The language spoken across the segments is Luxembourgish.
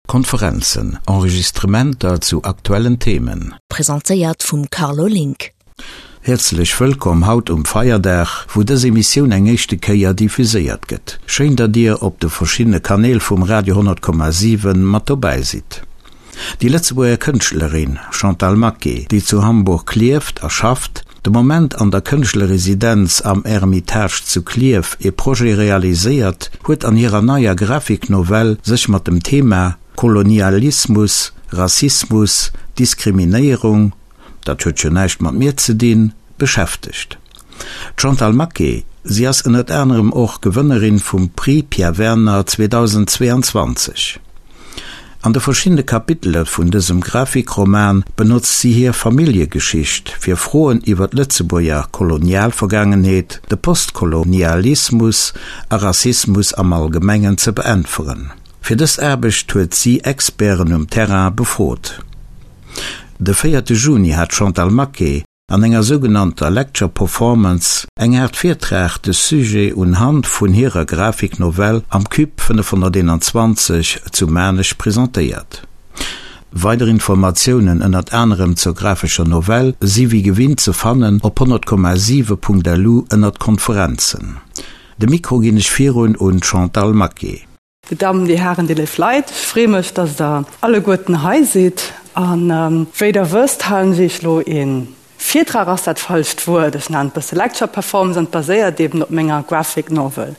Konferenzen, Enregistrementer zu aktuellen Themen. Presentéiert vum Carlo Link. Häerzlech wëllkomm haut um Feierdag, wou dës Emissioun eng éischte Kéier diffuséiert gëtt. Schéin, datt Dir op de verschiddene Kanäl vum Radio 100,7 mat dobäi sidd. Déi Lëtzebuerger Kënschtlerin Chantal Maquet, déi zu Hamburg lieft a schafft, de Moment an der Kënschtlerresidenz am Ermitage zu Klierf ee Projet realiséiert, huet an hirer neier Grafiknovell sech mat dem Thema Kolonialismus, Rassismus, Diskriminéierung, dat huet jo näischt mat mir ze dinn, beschäftegt. D'Chantal Maquet, si ass ënnert anerem och Gewënnerin vum Prix Pierre Werner 2022. An de verschiddene Kapitele vun dësem Grafikroman benotzt si hir Familljegeschicht, fir Froen iwwer d'Lëtzebuerger Kolonialvergaangenheet, de Postkolonialismus a Rassismus am Allgemengen ze beäntweren. Fir dës Aarbecht huet si Experten um Terrain befrot. De véierte Juni hat d'Chantal Maquet an enger sougenannter Lecture Performance, eng Aart Virtrag, de Sujet un Hand vun hirer Grafiknovell am Cube 521 zu Maarnech presentéiert. Weider Informatiounen, ënnert anerem zur grafescher Novell, si wéi gewinnt ze fannen op 100,7.lu ënnert Konferenzen. De Mikro ginn ech virun un d'Chantal Maquet. Dir Dammen, Dir Hären, Dir léif Leit, ech free mech, dass Der alleguerten hei sidd. A wéi Der wësst, halen ech Iech elo ee Virtrag, ass dat falscht Wuert, ech nennen et bësse Lecture Performance, an et baséiert eben op menger Graphic Novel.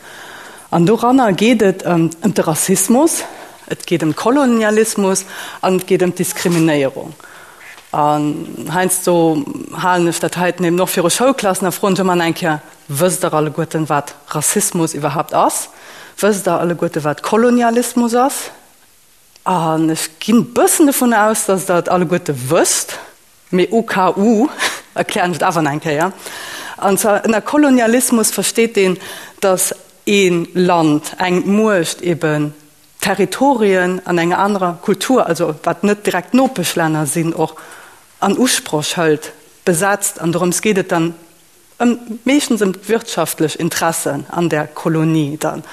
An doranner geet et ëm de Rassismus, et geet ëm Kolonialismus an et geet ëm d'Diskriminéierung. An heiansdo halen ech dat heiten eben och viru Schoulklassen a froen ech ëmmer eng Kéier, Wësst Der alleguerten, wat Rassismus iwwerhaapt ass? Wësst Der alleguerte wat Kolonialismus ass? An ech ginn e bëssen dovun aus, datt Der et alleguerte wësst, mee au cas où erklären ech et awer nach eng Kéier. An zwar ënner Kolonialismus versteet een, datt ee Land, eng Muecht eben Territorien an enger anerer Kultur, also wat net direkt Nopeschlänner sinn, och an Usproch hëlt, besetzt. An dorëms geet et dann Ëm, meeschtens ëm d'wirtschaftlech Interessen an där Kolonie dann.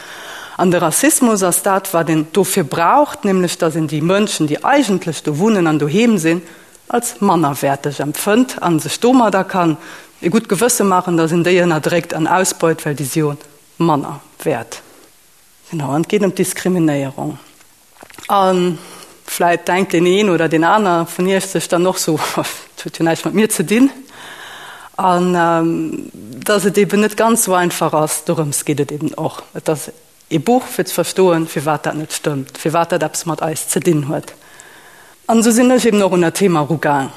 An de Rassismus ass dat, wat een dofir braucht, nämlech datt een déi Mënschen, déi eigentlech do wunnen an doheem sinn, als mannerwäerteg empfënnt a sech domadder kann e gutt Gewësse maachen, datt een déi ënnerdréckt an ausbeut, well déi si jo manner wäert. Genau, an et geet ëm d'Diskriminéierung. A vläit denkt deen een oder deen aner vun iech sech dann och sou, Dat huet jo näischt mat mir ze dinn. An dass et eben net ganz sou einfach ass, dorëms geet et eben och. Et ass ee Buch fir ze verstoen, firwat dat net stëmmt, firwat dat eppes mat eis ze dinn huet. An esou sinn ech eben och un dat Thema erugaang.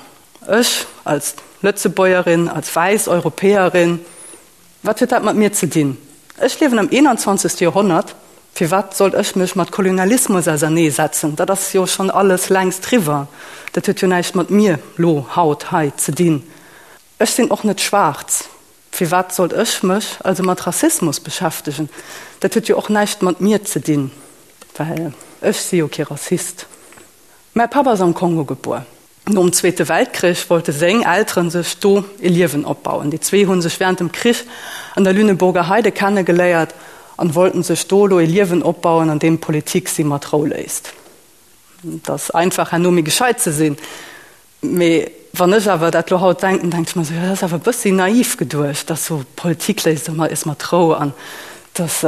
Ech als Lëtzebuergerin, als wäiss Europäerin, Wat huet dat mat mir ze dinn? Ech liewen am 21. Joerhonnert, firwat sollt ech mech mat Kolonialismus ausernee setzen? Dat ass jo schonn alles längst riwwer. Dat huet jo näischt mat mir lo, haut, hei ze dinn. Ech sinn och net schwaarz, firwat sollt ech mech also mat Rassismus beschäftegen? Dat huet jo och näischt mat mir ze dinn, well ech si jo kee Rassist. Mäi Papp ass am Kongo gebuer. Nom Zweete Weltkrich wollte seng Elteren sech do e Liewen opbauen. Déi zwee hu sech wärend dem Krich an der Lüneburger Heide kennegeléiert an wollten sech do elo e Liewen opbauen, an deem d'Politik si mat Rou léisst. Et ass einfach herno méi gescheit ze sinn, mee wann ech awer dat lo haut denken, denke ech mer esou, jo dat ass awer e bëssi naiv geduecht, dass sou Politik léisst eis mat Rou an dass.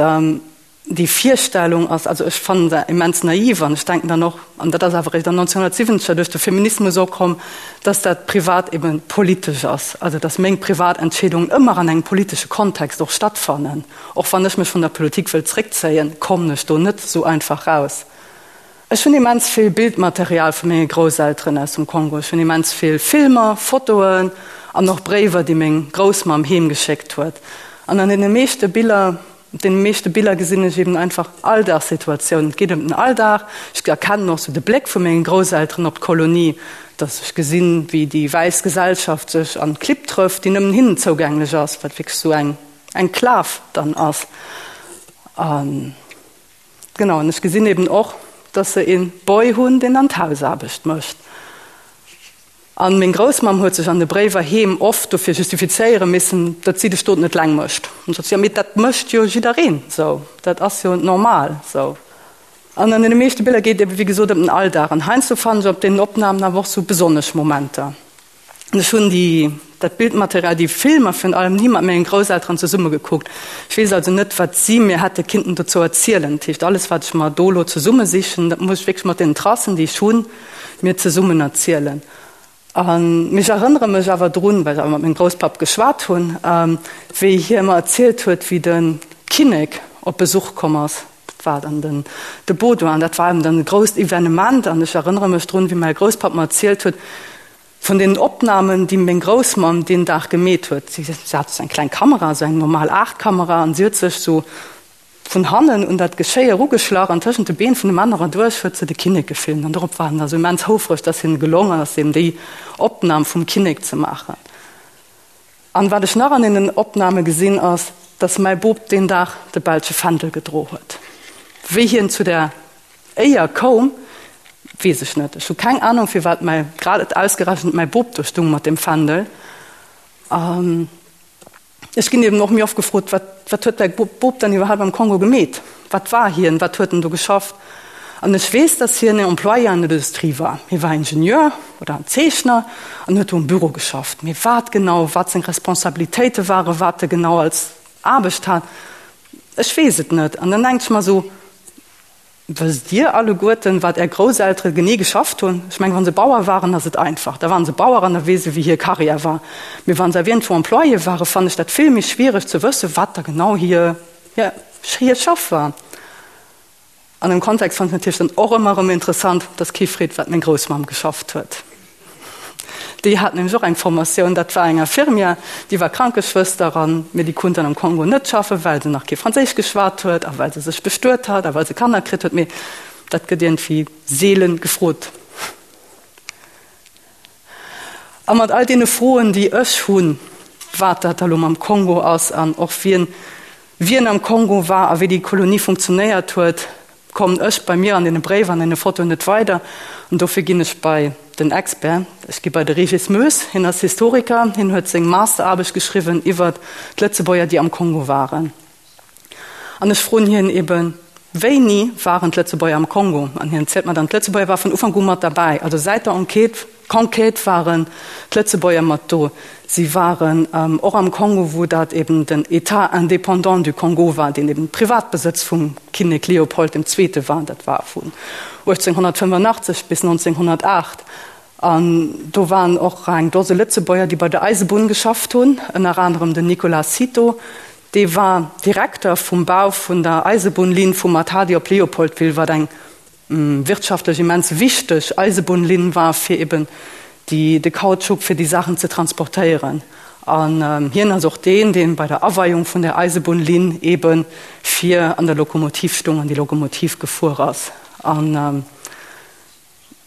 Déi Virstellung ass, also ech fannen se immens naiv an ech denken dann och, an dat ass awer eréischt an 1970er duerch de Feminismus opkomm, dass dat privat eben politesch ass, also dass meng privat Entscheedungen ëmmer an engem politesche Kontext och stattfannen. Och wann ech mech vun der Politik wëll zréckzéien, kommen ech do net esou einfach raus. Ech hunn immens vill Bildmaterial vu menge Grousselteren aus dem Kongo. Ech hunn immens vill Filmer, Fotoen an och Bréiwer, déi meng Groussmamm heem geschéckt huet. An an deene meeschte Biller, op deene meeschte Biller gesinn ech eben einfach Alldagssituatiounen. Et geet ëm den Alldag. Ech erkennen och sou de Bléck vu menge Grousselteren op d'Kolonie, dass ech gesinn, wéi déi wäiss Gesellschaft sech an d'Klipp trëfft, déi nëmmen hinnen zougänglech ass, wat wierklech sou eng Enklav dann ass. An. Genau, an ech gesinn eben och, dass se een Boy hunn, deen dann d'Hausaarbecht mécht. An meng Groussmamm huet sech an de Bréiwer heem oft dofir justifizéiere missen, datt si de Stot net leng mécht. An sot si, jo, mee dat mécht jo jiddereen sou, dat ass jo normal sou. An an deene meeschte Biller geet et ebe wéi gesot ëm den Alldag. An heiansdo fannen ech op deenen Opnamen awer och sou besonnesch Momenter. An ech hunn déi, dat Bildmaterial, déi Filmer virun allem ni mat mengen Grousselteren zesumme gekuckt. Ech weess also net, wat si mir hätte kinnten dozou erzielen. Dat heescht, alles wat ech mer do elo zesummesichen, dat muss ech wierklech mat deenen Tracen, déi ech hunn, mir zesummen erzielen. An ech erënnere mech awer drun, well ech awer mat mengem Grousspapp geschwat hunn, wéi hie mer erzielt huet, wéi de Kinnek op Besuch komm ass. Dat war dann den de Baudouin. Dat war eben dann e grousst Evenement. An ech erënnere mech drun, wéi mäi Grousspapp mer erzielt huet vun deenen Opnamen, déi meng Groussmamm deen Dag gemeet huet. Si hat esou eng kleng Kamera, esou eng normal Aachtkamera, an si huet sech esou vun hannen un dat Geschéi erugeschlach an tëschent de Been vun de Männer erduerch huet se de Kinnek gefilmt. An dorop war en da sou immens houfreg, dass him gelongen ass, eben déi Opnam vum Kinnek ze maachen. An wat ech nach an deenen Opname gesinn, ass, dass mäi Bop deen Dag de belsche Fändel gedro huet. Wéi hien zu där Éier koum, weess ech net. Ech hu keng Anung, firwat mäi, grad ausgerechent mäi Bop do stung mat deem Fändel. Ech ginn eben och méi oft gefrot, wat, wat huet däi Bop dann iwwerhaapt am Kongo gemeet? Wat war hien? Wat huet en do geschafft? An ech weess, datt hien en Employé an der Industrie war. Hie war Ingenieur oder en Zeechner an huet do am Büro geschafft. Mee wat genau, wat seng Responsabilitéite waren, wat e genau als Aarbecht hat, ech weess et net. An dann denke ech mer esou, Wësst Dir alleguerten, wat Är Grousseltere genee geschafft hunn? Ech mengen, wa se Bauer waren, ass et einfach. Da waren se Bauer an da weess ee, wéi hir Karriär war. Mee wa se awer iergendwou Employé waren, fannen ech dat vill méi schwiereg ze wëssen, wat da genau hir, hir Schaff war. An dem Kontext fannen ech natierlech dann och ëmmer erëm interessant, dass kee freet, wat meng Groussmamm geschafft huet. Déi hat nämlech och eng Formatioun, dat war eng Infirmière, déi war Krankeschwëster an, mee déi konnt dann am Kongo net schaffen, well se nach kee Franséisch geschwat huet a well se sech bestuet hat a well se Kanner kritt huet. Mee dat gëtt iergendwéi seelen gefrot. A mat all deene Froen, déi ech hunn, wat dat da lo mam Kongo ass an och wien wien am Kongo war a wéi déi Kolonie funktionéiert huet, kommen ech bei mir an deene Bréiwer an deene Fotoen net weider. An dofir ginn ech bei den Expert. Ech gi bei de Régis Moes. Hien ass Historiker. Hien huet seng Masteraarbecht geschriwwen iwwert d'Lëtzebuerger, déi am Kongo waren. An ech froen hien eben, Wéini waren d'Lëtzebuerger am Kongo? An hien zielt mer dann, d'Lëtzebuerger ware vun Ufank u mat derbäi. Also säit der Enquête, Conquête waren d'Lëtzebuerger mat do. Si waren och am Kongo, wou dat eben den État indépendant du Congo war, deen eben Privatbesëtz vum Kinnek Leopold dem Zweete war. Dat war vun 1885 bis 1908. An do waren och eng Dose Lëtzebuerger, déi bei der Eisebunn geschafft hunn, ënner anerem den Nicolas Cito, dee war Direkter vum Bau vun der Eisebunnlinn vu Matadi op Léopoldville, wat eng wirtschaftlech immens wichteg Eisebunnlinn war, fir eben déi, de Kautschuk, fir déi Saachen ze transportéieren. An hien ass och deen, dee bei der Aweiung vun där Eisebunnlinn ebe vir an der Lokomotiv stung an déi Lokomotiv gefuer ass. An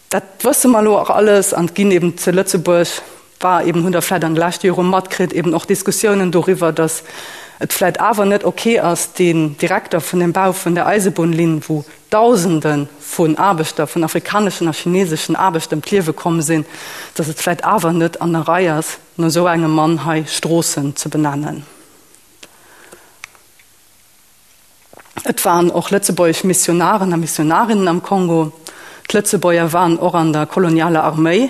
Dat wësse mer elo och alles an et ginn eben zu Lëtzebuerg, war eben, hunn Der vläicht an de leschte Jore matkritt, eben och Diskussiounen doriwwer, datt et vläicht awer net ok ass, deen Direkter vun dem Bau vun der Eisebunnlinn, wou Dausende vun Aarbechter, vun afrikaneschen a chineseschen Aarbechter ëm d'Liewe komm sinn, datt et vläicht awer net an der Rei ass, no esou engem Mann hei Stroossen ze benennen. Et waren och lëtzebuergesch Missionaren a Missionarinnen am Kongo. D'Lëtzebuerger waren och an der kolonialer Arméi.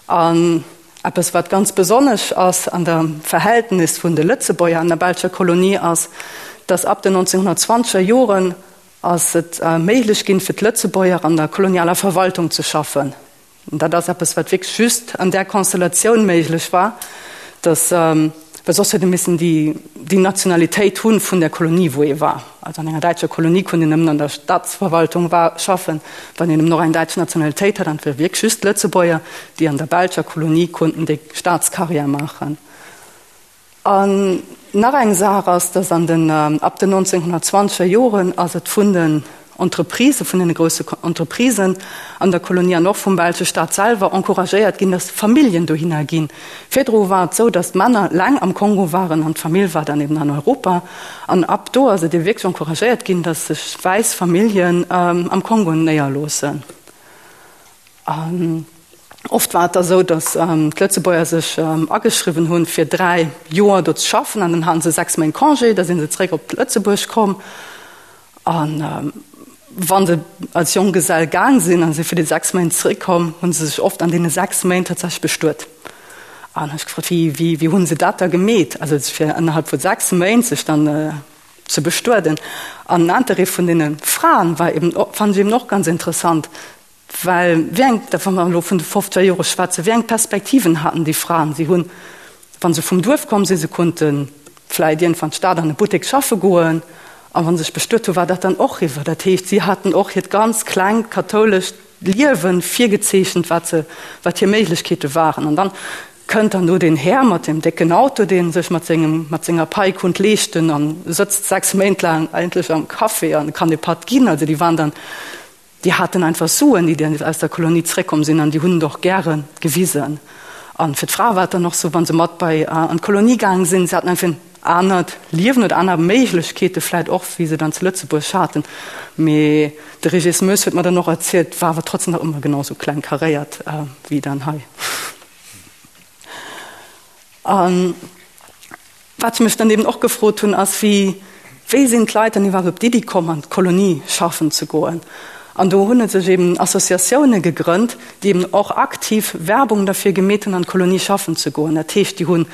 An eppes, wat ganz besonnesch ass an der Verhältnis vun de Lëtzebuerger an der belscher Kolonie, ass, datt ab den 1920er Joren ass et méiglech ginn, fir d'Lëtzebuerger an der kolonialer Verwaltung ze schaffen. Dat ass eppes, wat wierklech just an där Konstellatioun méiglech war, dass, well soss huet ee missen déi, déi Nationalitéit hu vun der Kolonie, wou ee war. Also an enger däitscher Kolonie konnt een nëmmen an der Staatsverwaltung war, schaffen, wann een nëmmen och eng däitsch Nationalitéit hat. An et ware wierklech just d'Lëtzebuerger, déi an der belscher Kolonie konnten déi Staatscarrière maachen. An nach eng Saach ass, dass an den, ab den 1920er Joren ass et vun den Entreprisë, vun deene grousse Entreprisen an der Kolonie an och vum belsche Staat selwer encouragéiert ginn, dass Familljen dohinner ginn. Virdru war et esou, dass d'Männer laang am Kongo waren an d'Famill war dann eben an Europa. An ab do ass et ebe wierklech encouragéiert ginn, dass sech wäiss Familljen am Kongo néierloossen. An oft war et da sou, datt d'Lëtzebuerger sech ageschriwwen hunn, fir 3 Joer do ze schaffen, an dann haten se 6 Méint Congé, da si se zeréck op Lëtzebuerg komm. An. Wa se als Jonggesell gaang sinn a si fir déi 6 Méint zeréckkomm, hu se sech oft an deene 6 Méint tatsächlech bestuet. An hu ech gefrot, wéi, wéi, wéi hu se dat da gemeet? Also fir ënnerhalb vu 6 Méint sech dann ze bestueden. An den Interêt vun deene Fraen war eben, fand ech eben och ganz interessant, Well wéi eng, da wa mer elo vun de fofzeger Jore schwätzen, wéi eng Perspektiven haten déi Fraen? Si hunn, wa se vum Duerf komm sinn, se konnte vläicht iergendwann d'Stad an e Buttek schaffe goen, a wa se sech bestuet hunn, war dat dann och eriwwer. Dat heescht, si haten och hiert ganz klengt kathoulescht Liewe virgezeechent, wat se, wat hir Méiglechkeete waren. An dann kënnt dann do deen Här mat deem décken Auto, dee sech mat sengem, mat senger Pai konnt leeschten a sëtzt 6 Méint laang eigentlech am Café an kann e Patt ginn. Also déi waren dann Déi haten einfach Suen, déi aus der Kolonie zréckkomm sinn, an déi hunn et och gäre gewisen. A fir d'Frae war et dann och sou, wa se mat bei an d'Kolonie gaang sinn, se haten einfach en anert Liewen oder aner Méiglechkeete vläit och, wéi se dann zu Lëtzebuerg haten. Mee de Régis Moes huet mer dann och erzielt, war awer trotzdem nach ëmmer genau sou kleng karéiert wéi dann hei. An wat ech mech dann eben och gefrot hunn, ass, wéi, wéi sinn d'Leit dann iwwerhaapt op d'Iddi komm, an d'Kolonie schaffen ze goen? An do hunn et sech eben Associatioune gegrënnt, déi eben och aktiv Werbung derfir gemeet hunn, an d'Kolonie schaffen ze goen. Dat heescht, déi hunn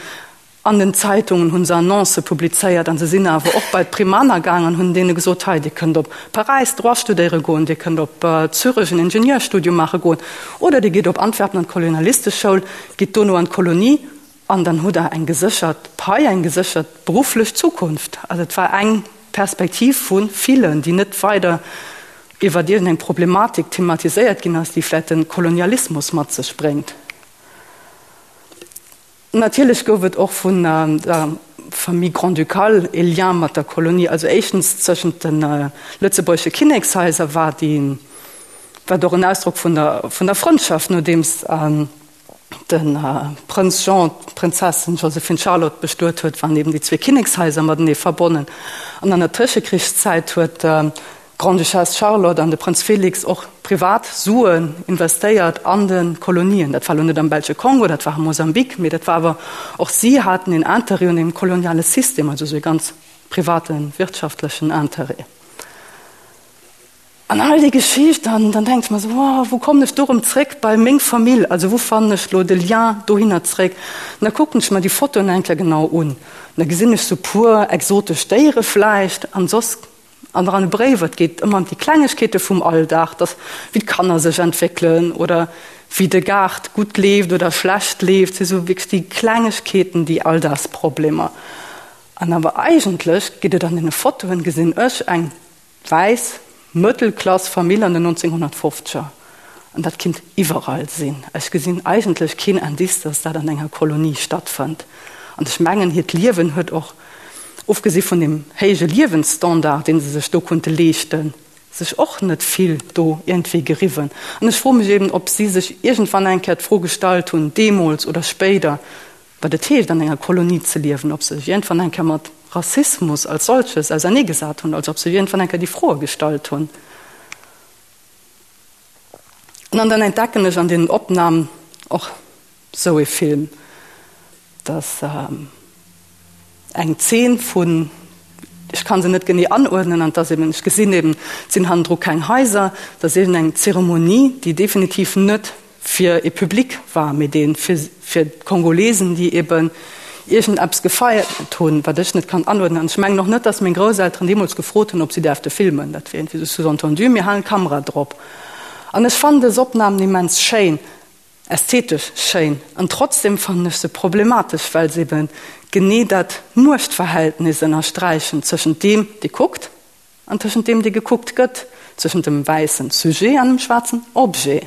an den Zeitungen hu se Annoncë publizéiert an se sinn awer och bei d'Primaner gaang an hunn deene gesot, hei, Dir kënnt op Paräis Droit studéiere goen, Dir kënnt op Zürech en Ingenieurstudium maache goen oder Dir gitt op Antwerpen an d'Kolonialisteschoul, gitt dono an d'Kolonie an dann hutt Der eng geséchert Pai, eng geséchert berufflech Zukunft. Also et war eng Perspektiv vu villen, déi net weider iwwer iergendeng Problematik thematiséiert ginn ass, déi vläicht de Kolonialismus mat sech bréngt. Natierlech gouf et och vun der Famille grand-ducale ee Lien mat der Kolonie. Also éischtens tëschent de lëtzebuergesche Kinnekshaiser war déi, war et och en Ausdrock vun der, vun der Frëndschaft, nodeems de Prënz Jean d'Prinzessin Joséphine Charlotte bestuet huet, waren eben déi zwee Kinnekshaiser matenee verbonnen. An an der Tëschekrichszäit huet d'Grande-Duchesse Charlotte an de Prënz Félix och privat Suen investéiert an de Kolonien. Dat war elo net am belsche Kongo, dat war am Mosambik, mee dat war awer, och si haten een Interêt un deem koloniale System, also esou ee ganz private wirtschaftlechen Interêt. An all déi Geschicht, an dann denke ech mer esou, oh, wou kommen ech do erëm zréck bei meng Famill, also wou fannen ech elo de Lien dohinner zréck? An da kucken ech mer déi Fotoen eng Kéier genau un, an da gesinn ech sou puer exotesch Déiere vläicht, an soss An an de Bréiwer, et geet ëmmer ëm déi Klengegkeete vum Alldag, dass wéi d'Kanner sech entwéckelen oder wéi de Gaart gutt leeft oder schlecht leeft, si sou wierklech déi Klengegkeeten, déi Alldagsproblemer. An awer eigentlech geet et an deene Fotoen, gesinn ech eng wäiss Mëttelklass-Famill an den 1950er. An dat kinnt iwwerall sinn. Ech gesinn eigentlech keen Indice, dass dat an enger Kolonie stattfënnt. An ech mengen, hiert Liewen huet och ofgesi vun deem héije Liewensstandard, dee se sech do konnte leeschten, sech och net vill do iergendwéi geriwwen. An ech froe mech eben, ob si sech iergendwann eng Kéier d'Fro gestallt hunn, deemools oder spéider, wat et heescht, an enger Kolonie ze liewen, ob se sech iergendwann eng Kéier mat Rassismus als solches auserneegesat hunn, also ob se sech iergendwann eng Kéier déi Froe gestallt hunn. An dann entdecken ech an deenen Opnamen och sou ee Film, dass eng Zeen vun, ech kann se net genee anuerdnen, an dass eben, ech gesinn eben, et sinn hannendru keng Haiser, dass eben eng Zeremonie, déi definitiv net fir ee Public war, mee dee fir fir d'Kongolesen, déi eben iergendeppes gefeiert hunn, wat ech net kann anuerdnen. An ech mengen och net, dass meng Grousselteren deemools gefrot hunn, ob si däerfte filmen. Dat wier iergendwéi sou sous-entendu, mir halen d'Kamera drop. An ech fannen dës Opnamen immens schéin. Ästhetesch schéin, an trotzdem fannen ech se problematesch, well se eben genee dat Muechtverhältnis ënnersträichen tëschent deem, dee kuckt, an tëschent deem, dee gekuckt gëtt, tëschent dem wäissen Sujet an dem schwaarzen Objet.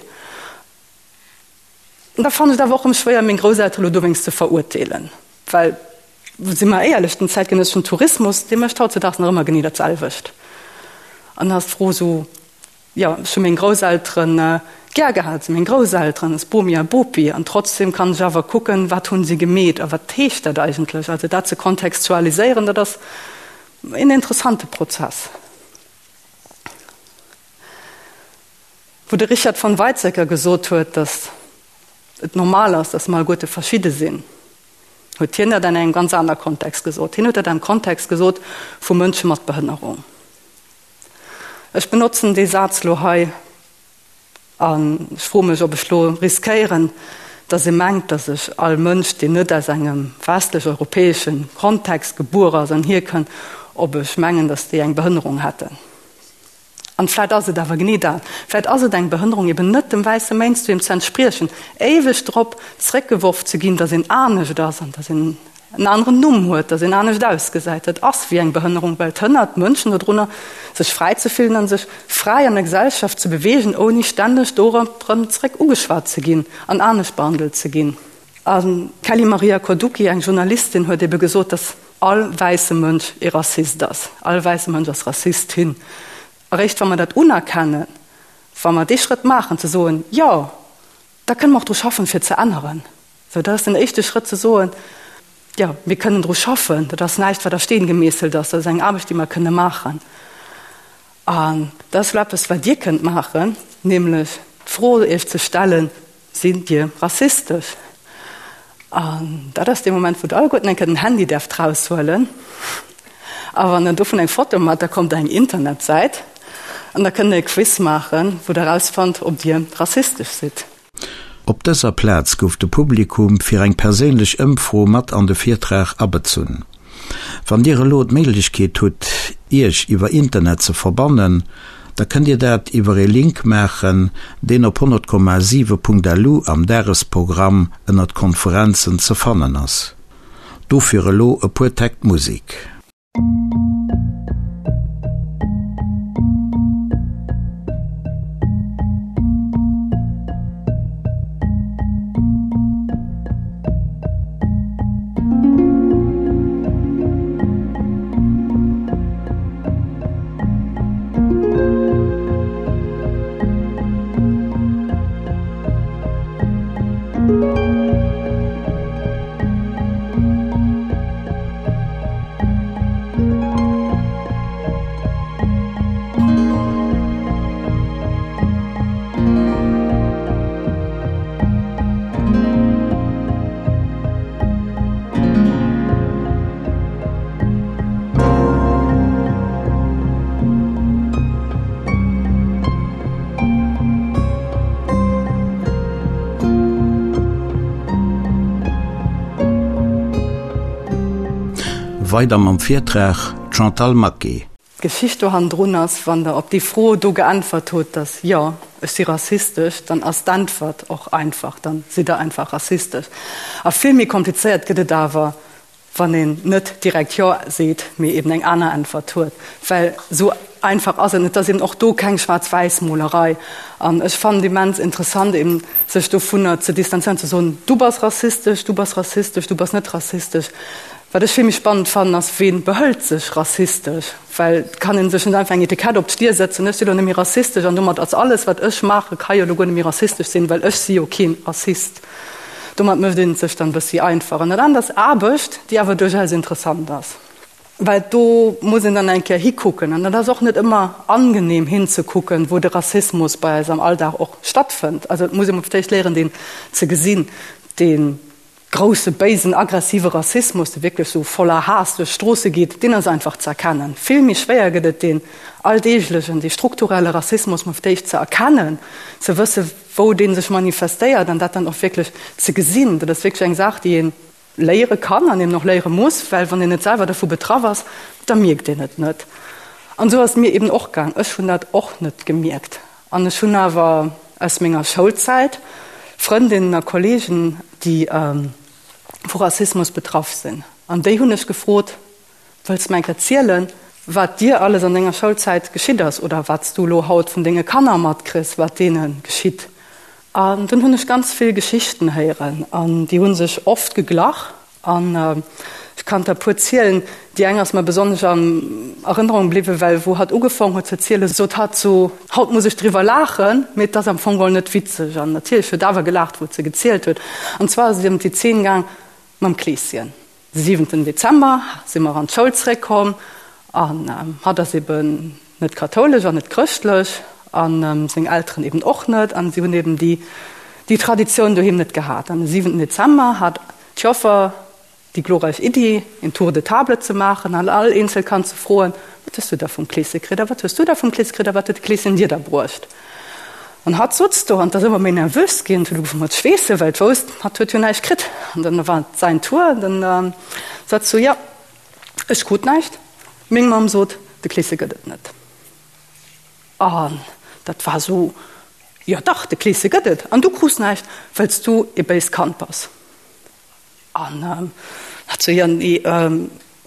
An da fannen ech et awer och erëm schwéier, meng Grousseltere lo dowéinst ze verurteelen, well, si mer éierlech, den zäitgenësseschen Tourismus, dee mécht hautzedaags nach ëmmer genee dat selwecht. An da ass d'Fro esou, Jo, ech hu meng Grousselteren gär gehat, si meng Grousselteren, ass Bomi a Bopi, an trotzdem kann ech awer kucken, wat hunn si gemeet a wat heescht dat eigentlech. Also dat ze kontextualiséieren, dat ass een interessante Prozess. Wou de Richard von Weizsäcker gesot huet, datt et normal ass, datt mer alleguerte verschidde sinn, huet hien dat an engem ganz aner Kontext gesot. Hien huet dat am Kontext gesot vu Mënsche mat Behënnerung. Ech benotzen dee Saz lo hei an ech froe mech, ob ech lo riskéieren, datt ee mengt, datt ech all Mënsch, deen net aus engem westlech-europäesche Kontext gebuer ass an hierkënnt, ob ech mengen, datt déi eng Behënnerung hätten. An vläit ass et awer genee dat, vläit ass et eng Behënnerung, eben net dem wäisse Mainstream ze entspriechen, éiweg drop zréckgeworf ze ginn, datt een anescht ass an datt een en aneren Numm huet, datt een anescht ausgesäit. Dat ass wéi eng Behënnerung, well et hënnert d'Mënschen dodrunner, sech fräi ze fillen an sech fräi an der Gesellschaft ze beweegen, ouni stänneg dorop erëm zréck ugeschwat ze ginn an anescht behandelt ze ginn. A Kelly Maria Koduki, eng Journalistin, huet ebe gesot, datt all wäisse Mënsch ee Rassist ass. All wäisse Mënsch ass Rassistin. Eréischt wa mer dat unerkennen, wa mer dee Schrëtt maachen, ze soen, jo, da kënne mer och dru schaffen, fir et ze änneren. Sou, dat ass den éischte Schrëtt, ze soen, jo, mir kënnen dru schaffen. Dat ass näischt, wat a Steen gemeesselt ass. Dat ass eng Aarbecht, déi mer kënne maachen. An dat ass elo eppes, wat Dir kënnt maachen, nämlech d'Fro Iech ze stellen, Sidd Dir rassistesch? An dat ass dee Moment, wou Der alleguerten eng Kéier den Handy däerft raushuelen. A wann Der dovun eng Foto maacht, da kommt Der eng Internetsäit an da kënnt Der e Quiz maachen, wou Der erausfannt, ob Dir rassistesch sidd. Op dëser Plaz gouf de Publikum fir eng perséinlech Ëmfro mat an de Virtrag abezunn. Wann Dir elo d'Méiglechkeet hutt, Iech iwwer Internet ze verbannen, da kënnt Dir dat iwwer ee Link maachen, deen op 100,7.lu am Dagesprogramm ënnert Konferenzen ze fannen ass. Dofir elo e puer Täkt Musek. Weider mam Virtrag, d'Chantal Maquet. D'Geschicht do hannendrun ass, wann Der op déi Fro do geäntwert hutt, dass jo, ech si rassistesch, dann ass d'Äntwert och einfach, dann sidd Der einfach rassistesch. A vill méi komplizéiert gëtt et awer, wann een net direkt jo seet, mee eben eng aner Äntwert huet, well esou einfach ass et net. Et ass eben och do keng Schwaarz-Wäiss-Molerei. An ech fannen et immens interessant, eben sech dovunner ze distanzéieren, ze soen, du bass rassistesch, du bass rassistesch, du bass net rassistesch. Wat ech vill méi spannend fannen, ass, Ween behëlt sech rassistesch? Well et kann ee sech net einfach eng Etikett op d'Stier sëtzen, ech si lo net méi rassistesch an domat ass alles, wat ech maachen, ka jo lo guer net méi rassistesch sinn, well ech si jo keen Rassist. Domat mécht een et sech dann e bëssi einfach. An dat anert ass Aarbecht, déi awer duerchaus interessant ass, well do muss een dann eng Kéier hikucken. An dat ass och net ëmmer angenehm hinzekucken, wou de Rassismus bei eis am Alldag och stattfënnt. Also et muss ee mol fir d'éischt léieren, deen ze gesinn, deen grousse, béisen, aggressive Rassismus, dee wierklech sou voller Haass duerch d'Stroosse geet, deen ass einfach ze erkennen. Vill méi schwéier gëtt et, deen alldeeglechen, dee strukturelle Rassismus mol fir d'éischt ze erkennen, ze wësse wou dee sech manifestéiert an dat dann och wierklech ze gesinn. Dat ass wierklech eng Saach, déi ee léiere kann an eben och léiere muss, well wann een net selwer dovu betraff ass, da mierkt een et net. An esou ass et mir eben och gaang. Ech hunn dat och net gemierkt. An ech hunn awer aus menger Schoulzäit Frëndinnen a Kollegen, déi vu Rassismus betraff sinn. An déi hunn ech gefrot, Wëlls de mer eng Kéier zielen, wat dir alles an denger Schoulzäit geschitt ass oder wat s du elo haut vun denge Kanner matkriss, wat deene geschitt? An dunn hunn ech ganz vill Geschichten héieren an déi hu sech oft geglach. An ech kann der e puer zielen. Déi eng ass mer besonnesch an Erënnerung bliwwen, well wou hatt ugefong huet ze zielen, sot hatt sou, Haut muss ech driwwer laachen, mee et ass am Fong geholl net witzeg. An natierlech huet awer gelaacht, wou et se gezielt huet. An zwar ass et ëm déi Zeen gaang mam Kleeschen. De siwenten Dezember si mer an d'Schoul zeréckkomm an hatt ass eben net kathoulesch an net chrëschtlech an seng Elteren eben och net an si hunn eben déi déi Traditioun doheem net gehat. An de siwenten Dezember hat d'Joffer déi glorreich Iddi, een Tour de table ze maachen an all eenzel Kand ze froen, Wat. Wat hues du da vum Kleeschen kritt? A wat hues du da vum Kleeschen kritt? A wat huet de Kleeschen dir da bruecht? An hatt sutz do an 't ass ëmmer méi nervös ginn, huet ugefaangen mat schweessen, well et wousst, hatt huet jo näischt kritt. An dann war et säin Tour, an dann sot sou, Jo, ech krut näischt, meng Mamm sot, de Kleeschen gëtt et net. An dat war sou, Jo dach, de Kleeschen gëtt et, an du krus näischt, well s du ee béist Kand bass. An hat sou, Jo, nee,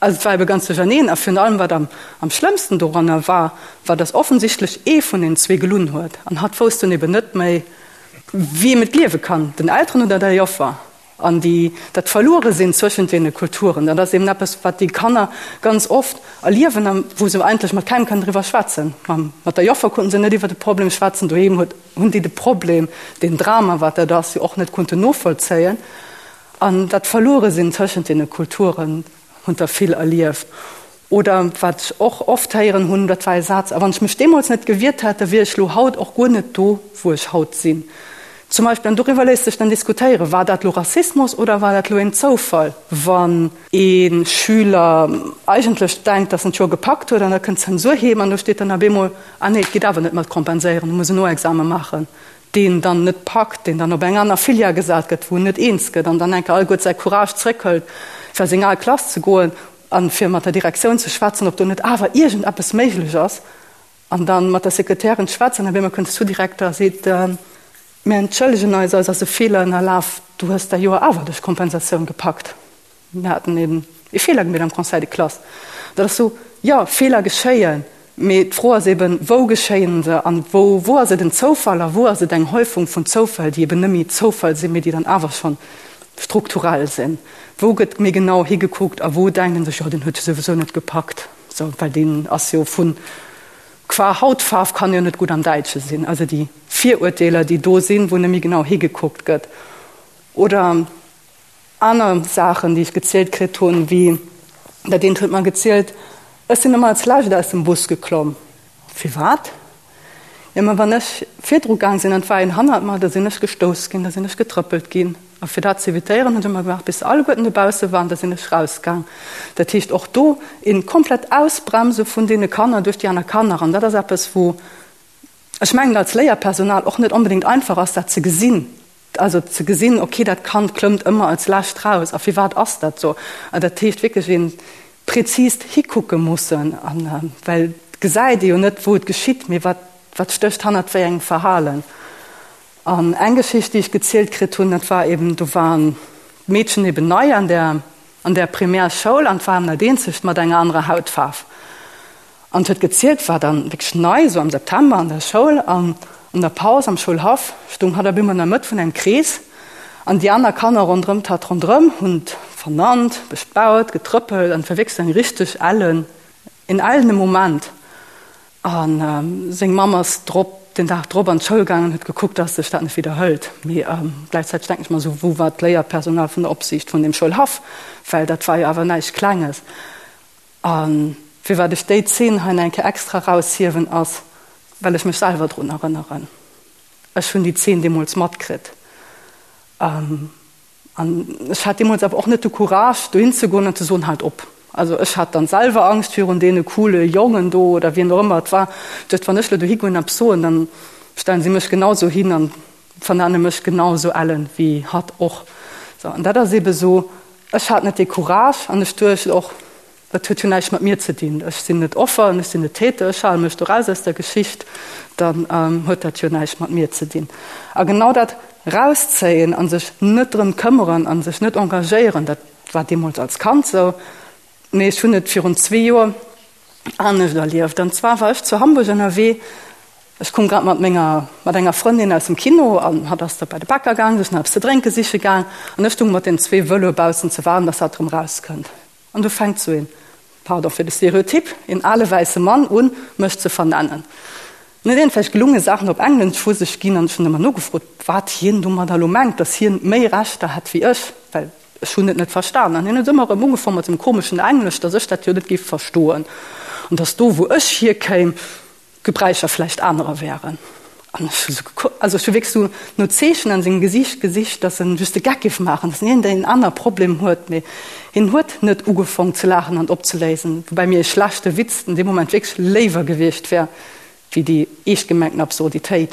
also et war ebe ganz duercherneen. A virun allem, wat am am schlëmmsten doranner war, war, datt offensichtlech ee vun den zwee gelunn huet. An hatt wousst dunn eben net méi, wiem et gleewe kann, den Elteren oder der Joffer. An déi, dat Verlueresinn zwëschent deene Kulturen, dat ass eben eppes, wat déi Kanner ganz oft erliewen a wou se eigentlech mat kengem kënnen driwwer schwätzen. Mam, mat der Joffer konnten se net iwwer de Problem schwätzen, doheem huet, hunn déi de Problem, deen Drama, wat dat ass, jo och net konnten novollzéien. An dat Verlueresinn tëschent deene Kulturen hunn der vill erlieft. Oder wat ech och oft héieren hunn, dat war e Saz, A wann ech mech deemools net gewiert hätt, da wier ech lo haut och guer net do, wou ech haut sinn. Zum Beispill, an doriwwer léisst sech dann diskutéieren, War dat lo Rassismus oder war dat lo een Zoufall? Wann ee Schüler eigentlech denkt, datt en d'Joer gepackt huet, an da kënnt d'Zensur heem an do steet dann op eemol, Ah nee, et geet awer net mat kompenséieren, du muss en Noexame maachen, deen dann net packt, deen dann op eng aner Filière gesat gëtt, wou en net eens gëtt an dann enke alleguer säi Courage zréckhëlt, fir a seng al Klass ze goen an fir mat der Direktioun ze schwätzen, ob do net awer iergendeppes méiglech ass, an dann mat der Sekretärin schwätzen, an op eemol kënnt de Sous-Direkter a seet, Mir entschëllegen eis, eis ass e Feeler ënnerlaf, du hues dat Joer awer duerch Kompensatioun gepackt. Mir haten eben e Feeler gemeet am Conseil de classe. Dat ass sou, jo, Feeler geschéien, mee d'Fro ass eben, wou geschéien se an wou, wou ass et en Zoufall a wou ass et eng Häufung vun Zoufäll, déi eben net méi Zoufall sinn, mee déi dann awer schonn strukturell sinn. Wou gëtt méi genau higekuckt a wou denkt ee sech, jo, deen huet jo souwisou net gepackt, sou, well deen ass jo vu qua Hautfaarf kann jo net gutt am Däitsche sinn. Also déi Virurteeler, déi do sinn, wou net méi genau higekuckt gëtt. Oder aner Saachen, déi ech gezielt kritt hunn, wéi dat eent huet mer gezielt, Ech sinn ëmmer als Lescht aus dem Bus geklomm. Firwat? Jo, ma wann ech virdru gaang sinn an et war een hannert mer, da sinn ech gestouss ginn, da sinn ech getrëppelt ginn. A fir dat z'evitéieren, hunn ech ëmmer gewaart, bis se alleguerten dobausse waren, da sinn ech rausgaang. Dat heescht, och do een komplett Ausbremse vun deene Kanner duerch déi aner Kanner. An dat ass eppes, wou ech mengen, als Léierpersonal och net onbedéngt einfach ass, dat ze gesinn. Also ze gesinn, okay, dat Kand klëmmt ëmmer als lescht raus a firwat ass dat esou? An dat heescht wierklech ee präzist hikucke mussen, an well et gesäit ee jo net, wou et geschitt, mee wat, wat stécht hannert wéi engem Verhalen. An eng Geschicht, déi ech gezielt kritt hunn, dat war eben, do waren d'Meedchen eben nei an där, an där Primärschoul an et war dat eenzegt mat enger anerer Hautfaarf. An huet gezielt, war dann wierklech nei, esou am September an der Schoul an an der Paus am Schoulhaff stung hatt op eemol an der Mëtt vun engem Krees an déi aner Kanner ronderëm d'hatt ronderëm hunn vernannt, bespaut, getrëppelt an et war wierklech esou eng richteg ellen, een ellene Moment. A seng Mamm ass drop, den Dag drop an d'Schoul gaangen an huet gekuckt, dass sech dat net widderhëlt. Mee gläichzäiteg denken ech mer esou, wou war d'Léierpersonal vun der Opsiicht vun deem Schoulhaff, well dat war jo awer näischt Klenges. A firwat ech déi Zeen hei nach eng Kéier extra eraushiewen, ass, well ech mech selwer drun erënneren. Ech hunn déi Zeen deemools matkritt. An ech hat deemools awer och net de Courage, dohin ze goen an ze soen, Haalt op! Also ech hat dann selwer Angscht virun deene coole Jongen do oder wien och ëmmer et war. Duecht, wann ech elo dohi goen an eppes soen, dann stellen si mech genau esou hin an vernenne mech genau esou ellen wéi hatt och. Sou, an dat ass eebe sou, ech hat net dee Courage an ech duecht och, dat huet jo näischt mat mir ze dinn, ech sinn net Offer an ech sinn net Täter, ech hale mech do raus aus der Geschicht, dann huet dat jo näischt mat mir ze dinn. A genau dat rauszéien a sech net drëm këmmeren a sech net engagéieren, dat war deemools als Kand sou, mee ech hunn et virun zwee Joer anescht erlieft. An zwar war ech zu Hamburg ënnerwee, ech koum grad mat menger, mat enger Frëndin aus dem Kino an hatt ass da bei de Bäcker gaang, sech nach eppes ze drénke siche gaang an ech stung mat den zwee Vëloe baussen ze waarden, dass hatt erëm rauskënnt. An du fänkt sou een, pardon fir de Stereotyp, een ale wäisse Mann un, mech ze vernennen. En huet iergendwelch gelunge Saachen op Englesch vu sech ginn an ech hunn ëmmer nogefrot, wat hien domadder elo mengt, dass hien méi Rechter hätt wéi ech, well Ech hunn et net verstan. An hien huet ëmmer erëm ugefaang mat sengem komeschen Englesch, dass ech dat jo net géif verstoen an dass do, wou ech hierkéim, d'Gebräicher vläicht anerer wären. An ech hu sou gekuckt, also ech hu wierklech sou no Zeechen an sengem Gesiicht gesicht, dass en just de Geck géif maachen, dass en iergendeen aner Problem huet. Mee hien huet net ugefong ze laachen an opzeléisen, woubäi mir e schlechte Witz an deem Moment wierklech léiwer gewiescht wär, wéi déi eescht gemengten Absurditéit.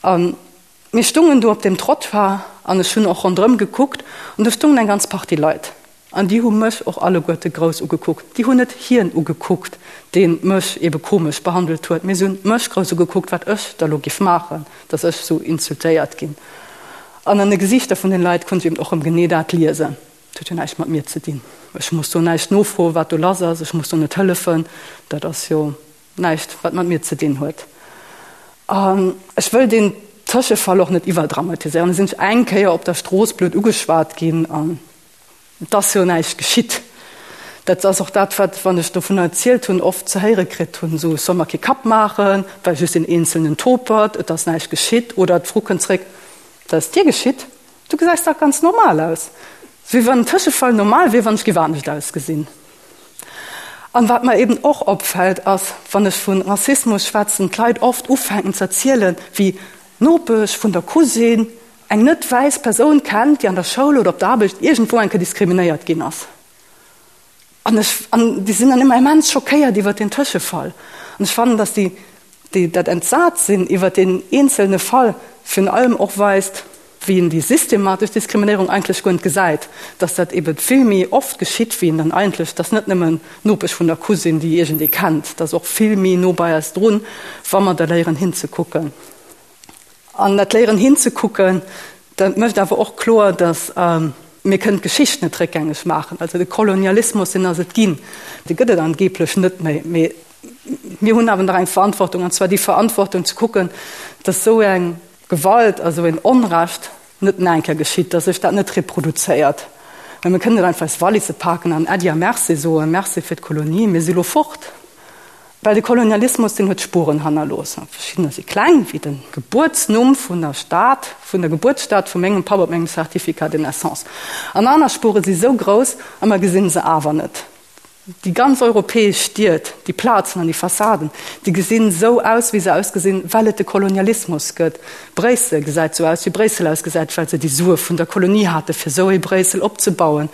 A mir stungen do op deem Trottoir an ech hunn och ronderëm gekuckt an do stungen eng ganz Partie Leit. An déi hu mech och alleguerte grouss ugekuckt. Déi hunn net hien ugekuckt, dee mech ebe komesch behandelt huet, mee se hunn mech grouss ugekuckt, wat ech da lo giff maachen, dass ech sou insultéiert ginn. An an de Gesiichter vun den Leit konnt ech eben och rëm genee dat liesen, Et huet jo näischt mat mir ze dinn. Ech muss do näischt nofroen, wat do lass ass. Ech muss do net hëllefen. Dat ass jo näischt, wat mat mir ze dinn huet. An ech wëll deen Tëschefall och net iwwerdramatiséieren. Da sinn ech eng Kéier op der Strooss blöd ugeschwat ginn an Et ass jo näischt geschitt. Dat ass och dat, wat, wann ech dovunner erzielt hunn, oft ze héiere kritt hunn, esou, ech soll mer kee Kapp maachen, well just een eenzelnen Topert, et ass näischt geschitt. Oder d'Fro kënnt zréck, Wat ass dir geschitt? Du gesäis dach ganz normal aus. Wéi wann en Tëschefall normal wier, wann ech géif anescht ausgesinn. An wat mer eben och opfält, ass, wann ech vu Rassismus schwätzen, d'Leit oft ufänken ze erzielen, wéi d'Nopesch vun der Cousine, eng net wäiss Persoun kennt, déi an der Schoul oder op der Aarbecht iergendwou eng Kéier diskriminéiert ginn ass. An ech, an déi sinn dann ëmmer immens schockéiert iwwert deen Tëschefall. An ech fannen, datt déi, déi dat entsat sinn iwwert deen eenzelne Fall virun allem och weist, wéi een déi systematesch Diskriminéierung eigentlech guer net gesäit, datt dat ebe vill méi oft geschitt, wéi een dann eigentlech, datt net nëmmen d'Nopesch vun der Cousine, déi iergendee kennt, datt och vill méi no bei eis drun, wa mer da léieren hinzekucken. An dat Léieren hinzekucken, dat mécht awer och kloer, datt mir kënnen d'Geschicht net réckgängeg maachen. Also de Kolonialismus, deen ass et ginn, dee gëtt et angeblech net méi. Mee mir hunn awer nach eng Verantwortung, an zwar déi Verantwortung ze kucken, datt esou eng Gewalt a sou een Onrecht net nach eng Kéier geschitt, datt sech dat net reproduzéiert. Well mir kënnen net einfach eis Walisse paken an Äddi a Merci soen, Merci fir d'Kolonie, mir si lo fort. Well de Kolonialismus, deen huet Spuren hannerlooss. Verschiddener si kleng, wéi de Gebuertsnumm vun der Stad, vun der Gebuertsstad vu mengem Papp op mengem Certificat de naissance. An aner Spure si sou grouss a mer gesinn se awer net. Déi ganz europäesch Stied, déi Plazen an déi Fassaden, déi gesinn sou aus, wéi se ausgesinn, well et de Kolonialismus gëtt. Bréissel gesäit sou aus, wéi Bréissel ausgesäit, well se déi Sue vun der Kolonie hate fir sou ee Bréissel opzebauen.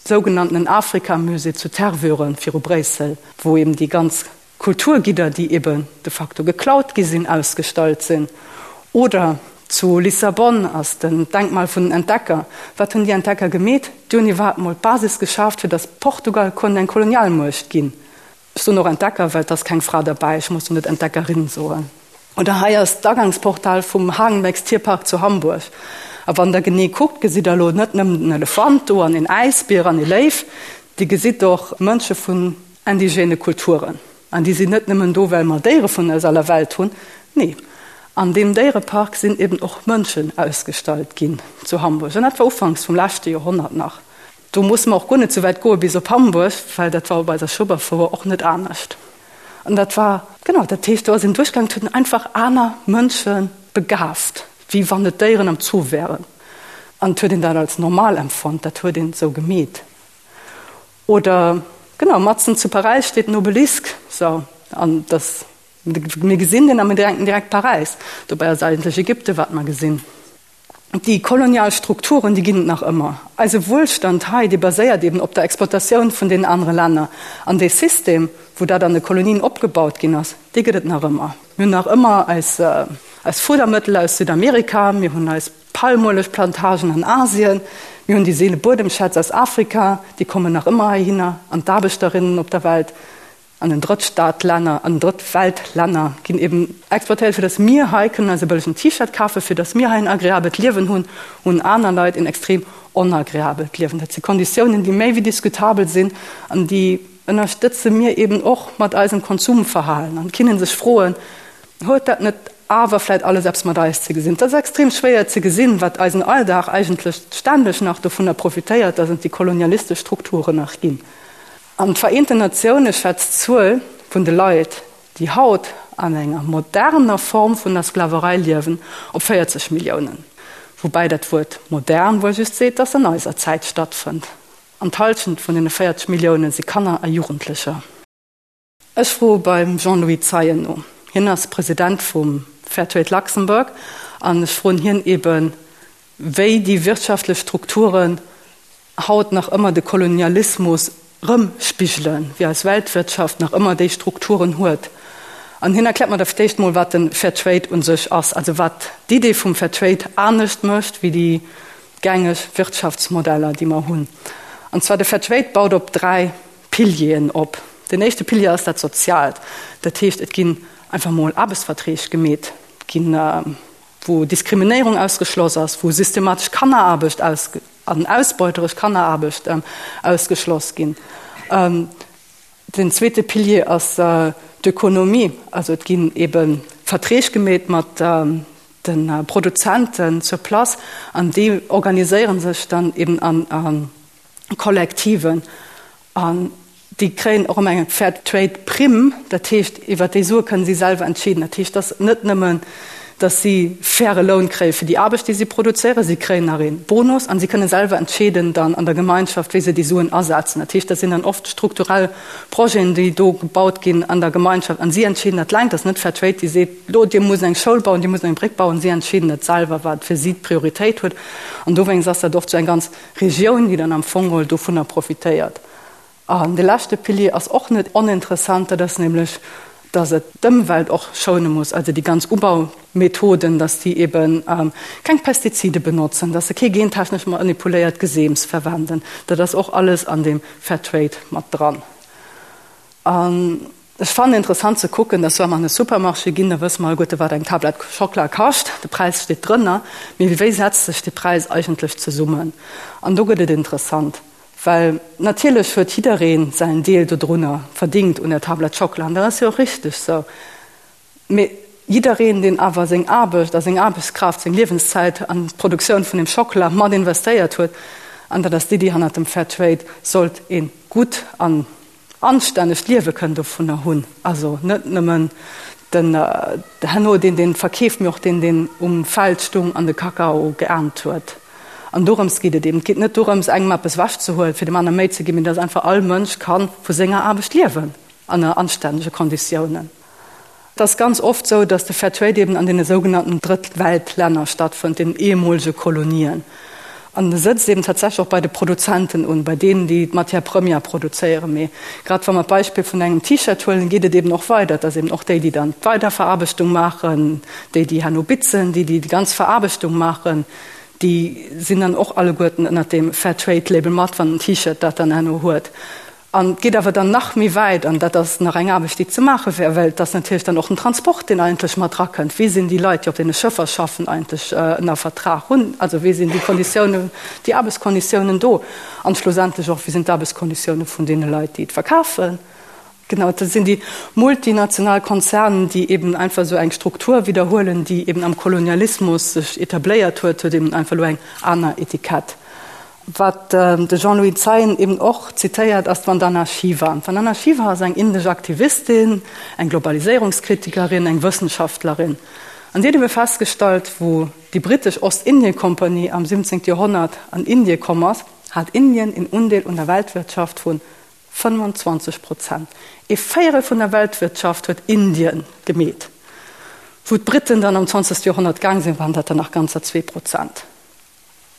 Sougenanntenen Afrikamusée zu Tervuren viru Bréissel, wou eben déi ganz Kulturgidder, déi eben de facto geklaut gi sinn, ausgestallt sinn. Oder zu Lissabon ass den Denkmal vun den Entdecker. Wat hunn déi Entdecker gemeet? Déi hunn iwwerhaapt mol d'Basis geschaaft, fir datt Portugal konnt eng Kolonialmuecht ginn. Ech soen och Entdecker, well et ass keng Fra derbäi, ech muss jo net Entdeckerin soen. Oder hei ass d'Agangsportal vum Hagenbecks Tierpark zu Hamburg. A wann der genee kuckt, gesitt der elo net nëmmen den Elefant do an een Äisbier an ee Léiw, Dir gesitt och Mënsche vun indigène Kulturen. An déi sinn net nëmmen do, well mer Déiere vun aus aller Welt hunn. Nee, an deem Déierepark sinn eben och Mënschen ausgestallt ginn zu Hamburg. An dat war ufanks vum leschte Joerhonnert nach. Do musse mer och guer net sou wäit goe bis op Hamburg, well dat war op eiser Schueberfouer och net anescht. An dat war, genau, dat heescht, do ass een duerchgaangen, et huet een einfach aner Mënsche begaaft, wéi wann et Déieren am Zoo wären. An et huet een dat als normal empfonnt, dat huet een esou gemeet. Oder, genau, matzen zu Paräis steet en Obelisk, sou, an dass, mir gesinn deen a mir denken direkt Paräis. Dobäi ass et eigentlech Ägypten, wat mer gesinn. Déi kolonial Strukturen, déi ginn et nach ëmmer. Eise Wuelstand hei, dee baséiert eben op der Exploitatioun vun deenen anere Länner. An dee System, wou dat an de Kolonien opgebaut ginn ass, dee gëtt et nach ëmmer. Mir hunn nach ëmmer eis, eis Fudermëttel aus Südamerika, mir hunn eis Palmuelegplantagen an Asien, mir hunn déi seele Buedemschätz aus Afrika, déi kommen nach ëmmer heihinner, an d'Aarbechterinnen op der Welt, an den Drëttstaatlänner, an den Drëttweltlänner ginn eben exploitéiert, fir datt mir hei kënnen eis e bëllegen T-Shirt kafen, fir datt mir hei en agreabelt Liewen hunn, hunn aner Leit en extrem onagreabelt Liewen. Dat si Konditiounen, déi méi wéi diskutabel sinn an déi ënnerstëtze mir eben och mat eisem Konsumverhalen. An et kinne sech froen, Huet dat net awer vläit alles eppes mat eis ze gesinn? Et ass extrem schwéier ze gesinn, wat eisen Alldag eigentlech ständeg nach dovunner profitéiert, dass et déi kolonialistesch Strukturen nach ginn. An d'Vereenten Natioune schätzt d'Zuel vun de Leit, déi haut an enger moderner Form vun der Sklaverei liewen, op 40 Milliounen. Woubäi dat Wuert modern wuel just seet, dass se an eiser Zäit stattfënnt. An d'Hallschent vun deene 40 Millioune si Kanner a Jugendlecher. Ech froe beim Jean-Louis Zeien no. Hien ass President vum. Fairtrade Luxembourg, an ech froen hien eben, wéi déi wirtschaftlech Strukturen haut nach ëmmer de Kolonialismus rëmspigelen, wéi eis Weltwirtschaft nach ëmmer déi Strukturen huet. An hien erkläert mer da fir d'éischt mol, wat de Fair Trade u sech ass, also wat d'Idee vum Fair Trade anescht mécht wéi déi gängeg Wirtschaftsmodeller, déi mer hunn. An zwar de Fair Trade baut op 3 Pilieren op. Den éischte Pilier ass dat Soziaalt. Dat heescht, et ginn einfach mol Aarbechtsverträg gemeet, et ginn, wou Diskriminéierung ausgeschloss ass, wou systematesch Kanneraarbecht an ausbeuteresch Kanneraarbecht ausgeschloss ginn. Den zweete Pilier ass d'Ökonomie. Also et ginn ebe Verträg gemeet mat de Produzenten sur place an déi organiséiere sech dann eben a Kollektiven. An déi kréien och ëmmer eng Fair Trade Primm, dat heescht, iwwert déi Sue kënnen si selwer entscheeden. Dat heescht, et ass net nëmmen, datt si faire Loun kréie fir déi Aarbecht, déi si produzéieren, si kréien nach ee Bonus an si kënne selwer entscheeden dann an der Gemeinschaft, wéi se déi Suen asetzen. Dat heescht, dat sinn dann oft strukturell Projeten, déi do gebaut ginn an der Gemeinschaft an si entscheeden dat eleng. Dat ass net Fair Trade, déi seet, lo dir musst eng Schoul bauen, dir musst eng Bréck bauen. Si entscheeden dat selwer, wat fir si d'Prioritéit huet. An dowéinst ass dat oft esou eng ganz Regioun, déi dann am Fong geholl dovunner profitéiert. An de leschte Pilier ass och net oninteressant, dat ass nämlech, dass et d'Ëmwelt och schoune muss, also déi ganz Ubaumethoden, dass déi ebe keng Pestizide benotzen, dass se kee gentechnesch manipuléiert Geseems verwenden. Dat ass och alles an deem Fairtrade mat dran. An Ech fannen interessant ze kucken, dass wa mer an e Supermarché ginn, da wësse mer alleguerte wat eng Tablett Schockela kascht, de Präis steet drënner, mee wéi setzt sech dee Präis eigentlech zesummen? An do gëtt et interessant, well natierlech huet jidderee säin Deel dodrunner verdingt un der Tablett Schockela, an dat ass jo och richteg sou, mee jiddereen, deen awer seng Aarbecht a seng Aarbechtskraaft, seng Liewenszäit an d'Produktioun vun deem Schockela mat investéiert huet, an dat ass d'Iddi hannert dem Fair Trade, sollt ee gutt an anstännegt Liewe kënnen dovunner hunn, also net nëmmen den herno deen deen verkeeft, mee och deen deen um Feld stung an de Kakao geernt huet. An dorëms geet et eben. Et geet net dorëms engem eppes ewechzehuelen, fir dem aner méi ze ginn, mee dass einfach all Mënsch ka vu senger Aarbecht liewen ënner anstännege Konditiounen. Et ass ganz oft sou, datt de Fair Trade eben an deene sougenannten Drëttweltlänner stattfënnt, den ehemolege Kolonien. An e sëtzt eben tatsächlech och bei de Produzenten un, bei deenen, déi d'Matière première produzéieren. Mee grad wa mer d'Beispill vun engem T-Shirt huelen, geet et eben och weider, dass eben och déi, déi dann d'Weiderveraarbechtung maachen, déi, déi herno bitzen, déi, déi déi ganz Veraarbechtung maachen, déi sinn dann och alleguerten ënnert deem Fair Trade Label mat, wann den T-Shirt dat dann herno huet. An et geet awer dann nach méi wäit, an dat ass nach eng Aarbecht, déi ze maache wär, well et ass natierlech dann och den Transport, deen eigentlech mat erakënnt. Wéi sinn déi Leit, déi op deene Schëffer schaffen, eigentlech ënner Vertrag? Hunn, also wéi sinn déi Konditiounen, déi Aarbechtskonditiounen do? An schlussendlech och, wéi sinn d'Aarbechtskonditiounen vun deene Leit, déi et verkafen? Genau, dat sinn déi multinational Konzernen, déi eben einfach esou eng Struktur widderhuelen, déi eben am Kolonialismus sech etabléiert huet, huet eben einfach elo eng aner Etikett. Wat de Jean-Louis Zeien eben och zitéiert, ass d'Vandana Shiva. D'Vandana Shiva ass eng indesch Aktivistin, eng Globaliséierungskritikerin, eng Wëssenschaftlerin. An si huet ebe festgestallt, wou déi brittesch Ostindien-Kompanie am 17. Joerhonnert an Indie komm ass, hat Indien een Undeel un der Weltwirtschaft vu 25 Prozent. Ee Véierel vun der Weltwirtschaft huet Indien gemeet. Wou d'Britten dann am 20. Joerhonnert gaang sinn, waren dat der nach ganzer 2 Prozent.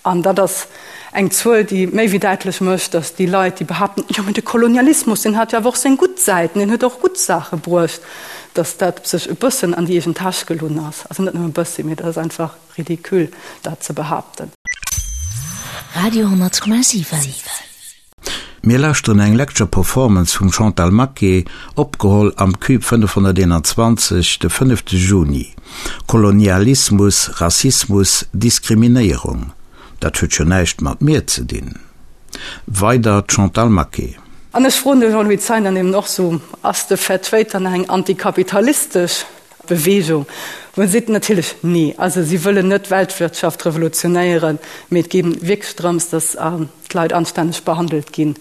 An dat ass eng Zuel, déi méi wéi däitlech mécht, datt déi Leit, déi behaapten, jo mä de Kolonialismus, deen hat jo awer och seng gutt Säiten, deen huet och gutt Saache bruecht, datt dat sech e bëssen an déi eegen Täsch gelunn ass. Also net nëmme e bëssi, mee dat ass einfach ridicule, dat ze behaapten. Radio 10,7. Mir lauschteren eng Lecture Performance vum Chantal Maquet, opgeholl am Cube 521 de fënnefte Juni. Kolonialismus, Rassismus, Diskriminéierung, dat huet jo näischt mat mir ze dinn. Weider d'Chantal Maquet. An ech froen de Jean-Louis Zeien dann eben och sou, Ass de Fair Trade dann eng antikapitalistesch Beweegung? Wou en seet, Natierlech nee. Also si wëllen net d'Weltwirtschaft revolutionéieren, mee et geet wierklech drëms, datt d'Leit anstänneg behandelt ginn.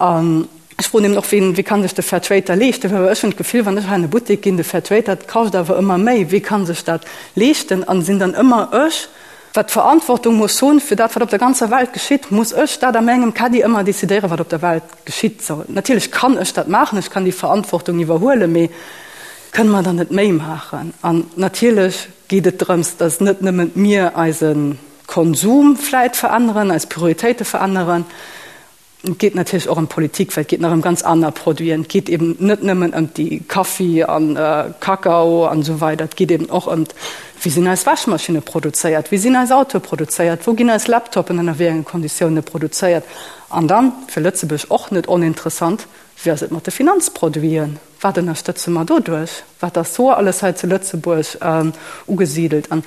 An ech froen eben och, wien, wie kann sech de Fair Trade da leeschten? Well ech hunn d'Gefill, wann ech hei an e Buttek ginn, de Fair Trade, dat kascht awer ëmmer méi, wie kann sech dat leeschten? An sinn dann ëmmer ech, wat d'Verantwortung muss hunn fir dat, wat op der ganzer Welt geschitt? Muss ech dat a mengem Caddie ëmmer decidéieren, wat op der Welt geschitt? Natierlech kann ech dat maachen, ech kann déi Verantwortung iwwerhuelen, mee. Kënne mer dann net méi maachen? An natierlech geet et drëms, dass net nëmmen mir eise Konsum vläit veränneren, eis Prioritéite veränneren, Et geet natierlech och ëm d'Politik, well et geet nach ëm ganz aner Produiten. Et geet eben net nëmmen ëm déi Kaffi an Kakao an esou weider. Et geet eben och ëm wéi sinn eis Wäschmaschinne produzéiert, wéi sinn eis Autoe produzéiert, wou ginn eis Laptopen ënner wéi enge Konditioune produzéiert. An dann, fir Lëtzebuerg och net oninteressant, wéi ass et mat de Finanzproduiten? Wat ënnerstëtze mer doduerch? Wat ass do alles hei zu Lëtzebuerg ugesidelt? An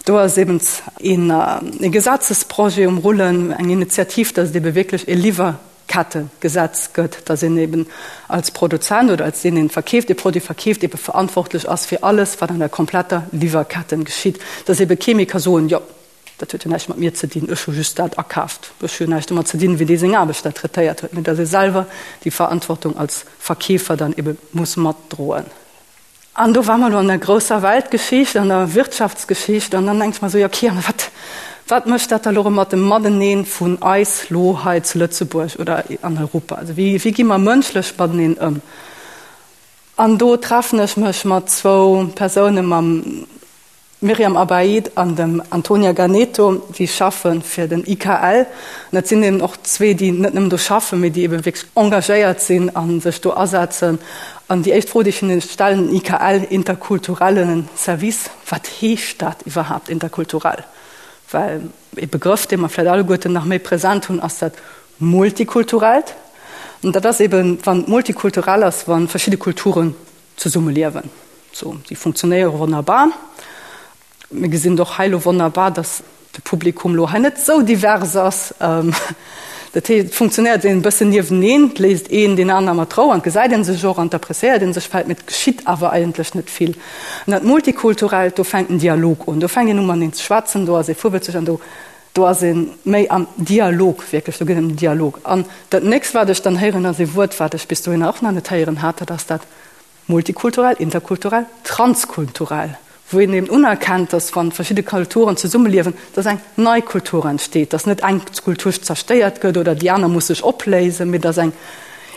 do ass eben ee Gesetzesprojet um Rullen, eng Initiativ, dass et ebe wierklech ee Liwwerkettegesetz gëtt, dass een eben als Produzent oder als deen, deen verkeeft, ee Produit verkeeft, ebe verantwortlech ass fir alles, wat an der kompletter Liwwerketten geschitt. Dass ebe kee méi ka soen, Jo, Dat huet jo näischt mat mir ze dinn, ech hu just dat akaaft, ech hu jo näischt domat ze dinn, wéi dee seng Aarbechter traitéiert huet, mee datt ee selwer déi Verantwortung als Verkeefer dann ebe muss matdroen. An do ware mer elo an der grousser Weltgeschicht, an der Wirtschaftsgeschicht, an dann denke ech mer esou, jo okay, an wat, wat mécht dat da elo erëm mat dem Matenee vun eis lo hei zu Lëtzebuerg oder an Europa? Also wéi, wéi gi mer mënschlech mateneen ëm? An do treffen ech mech mat zwou Persoune, mam Myriam Abaid an dem Antonia Ganeto, déi schaffe fir den IKL. An dat sinn eben och zwee, déi net nëmmen do schaffen, mee déi ebe wierklech engagéiert sinn a sech do asetzen. An déi éischt Fro, déi ech hinne stellen, IKL, interkulturellen Service, wat heescht dat iwwerhaapt, interkulturell? Well ee Begrëff, dee mer vläicht alleguerten nach méi present hunn, ass dat Multikulturellt. An dat ass eben, wann multikulturell ass, wa verschidde Kulturen zesummeliewen. Sou, déi funktionéiere wonnerbar. Mir gesinn et och hei elo wonnerbar, dass de Publikum elo hei net esou divers ass. Dat heescht, et funktionéiert een e bëssen nieweneen, et léisst een deen aner mat Rou an et gesäit ee sech och an et appréciéiert ee sech vläicht, mee et geschitt awer eigentlech net vill. An dat Multikulturellt, do fänkt en Dialog un, do fänkt een u mateneen ze schwätzen, do ass ee virwëtzeg an do do ass ee méi am Dialog, wierklech, do geet et ëm den Dialog. An dat nächst, wat ech dann héieren, ass ee Wuert, wat ech bis dohinner och nach net héieren hat, dat ass dat Multikulturell, interkulturell, transkulturell, wou een eben unerkennt, dass wann verschidde Kulturen zesummeliewen, dass eng nei Kultur entsteet, dass net eng Kultur zerstéiert gëtt oder déi aner muss sech opléisen, mee dass eng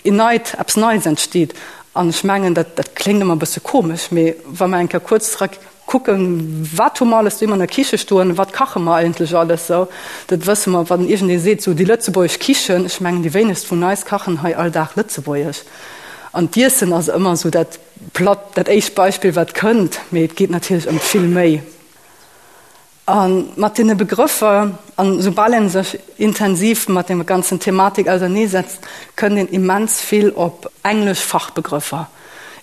een neit, eppes Neits entsteet. An ech mengen, dat dat kléngt ëmmer e bësse komesch, mee wa mer eng Kéier kuerz zereck Kucken, wat hu mer alles doheem an der Kiche stoen, wat kache mer eigentlech alles sou, dat wësse mer. Wann iergendee seet, sou déi lëtzebuergesch Kichen, ech mengen déi wéinegst vun eis kachen hei all Dag lëtzebuergesch. An d'Iessen ass ëmmer sou dat platt, dat éischt Beispill wat kënnt, mee et geet natierlech ëm vill méi. A mat deene Begrëffer, an soubal een sech intensiv mat deem ganzen Thematik auserneesetzt, kënnt een immens vill op englesch Fachbegrëffer,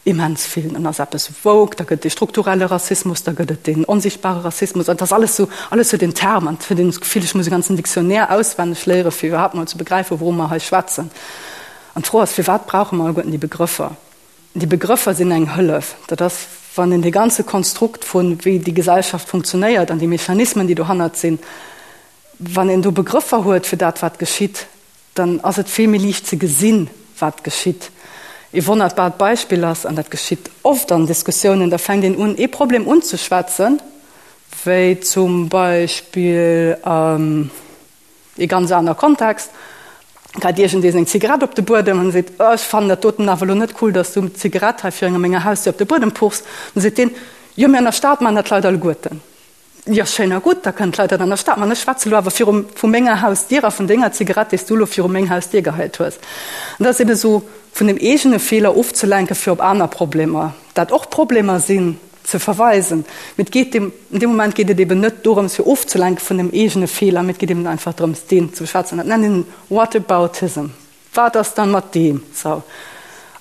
immens vill. Dann ass eppes woke, da gëtt et dee strukturelle Rassismus, da gëtt et deen onsichtbare Rassismus, an et ass alles sou, alles huet een Term, an et huet een d'Gefill, ech muss e ganzen Dictionnaire auswenneg léiere fir iwwerhaapt mol ze begräifen, wouru mer hei schwätzen. An d'Fro ass, Firwat brauche mer alleguerten déi Begrëffer? Déi Begrëffer sinn eng Hëllef. Dat ass, wann een dee ganze Konstrukt vun, wéi déi Gesellschaft funktionéiert an déi Mechanismen, déi dohannert sinn, wann een do Begrëffer huet fir dat, wat geschitt, dann ass et vill méi liicht ze gesinn, wat geschitt. Ee wonnerbart Beispill ass, an dat geschitt oft an Diskussiounen, da fänkt een un, ee Problem unzeschwätzen, wéi zum Beispill, Ee ganz aner Kontext, geit iergendee seng Zigarett op de Buedem an seet, Oh, ech fannen dat doten awer elo net cool, dass du d'Zigarett hei virun menger Hausdier op de Buedem puchs. Dann seet deen, Jo, mee an der Stad maachen dat d'Leit alleguerten. Jo, schéin a gutt, da kënnen d'Leit dat an der Stad maachen. Ech schwätze elo awer viru vu menger Hausdier a vun denger Zigarett, déi s du elo viru meng Hausdier geheit hues. An dat ass eben esou, vun dem eegene Feeler ofzelenken, fir op aner Problemer, dat och Problemer sinn, ze verweisen. Mee et geet deem, an deem Moment geet et eben net dorëms fir ofzelenke vun dem eegene Feeler, mee et geet eben einfach drëms deen ze beschwätzen. Dat nennt een Whataboutism. Wat ass dann mat deem? Sou.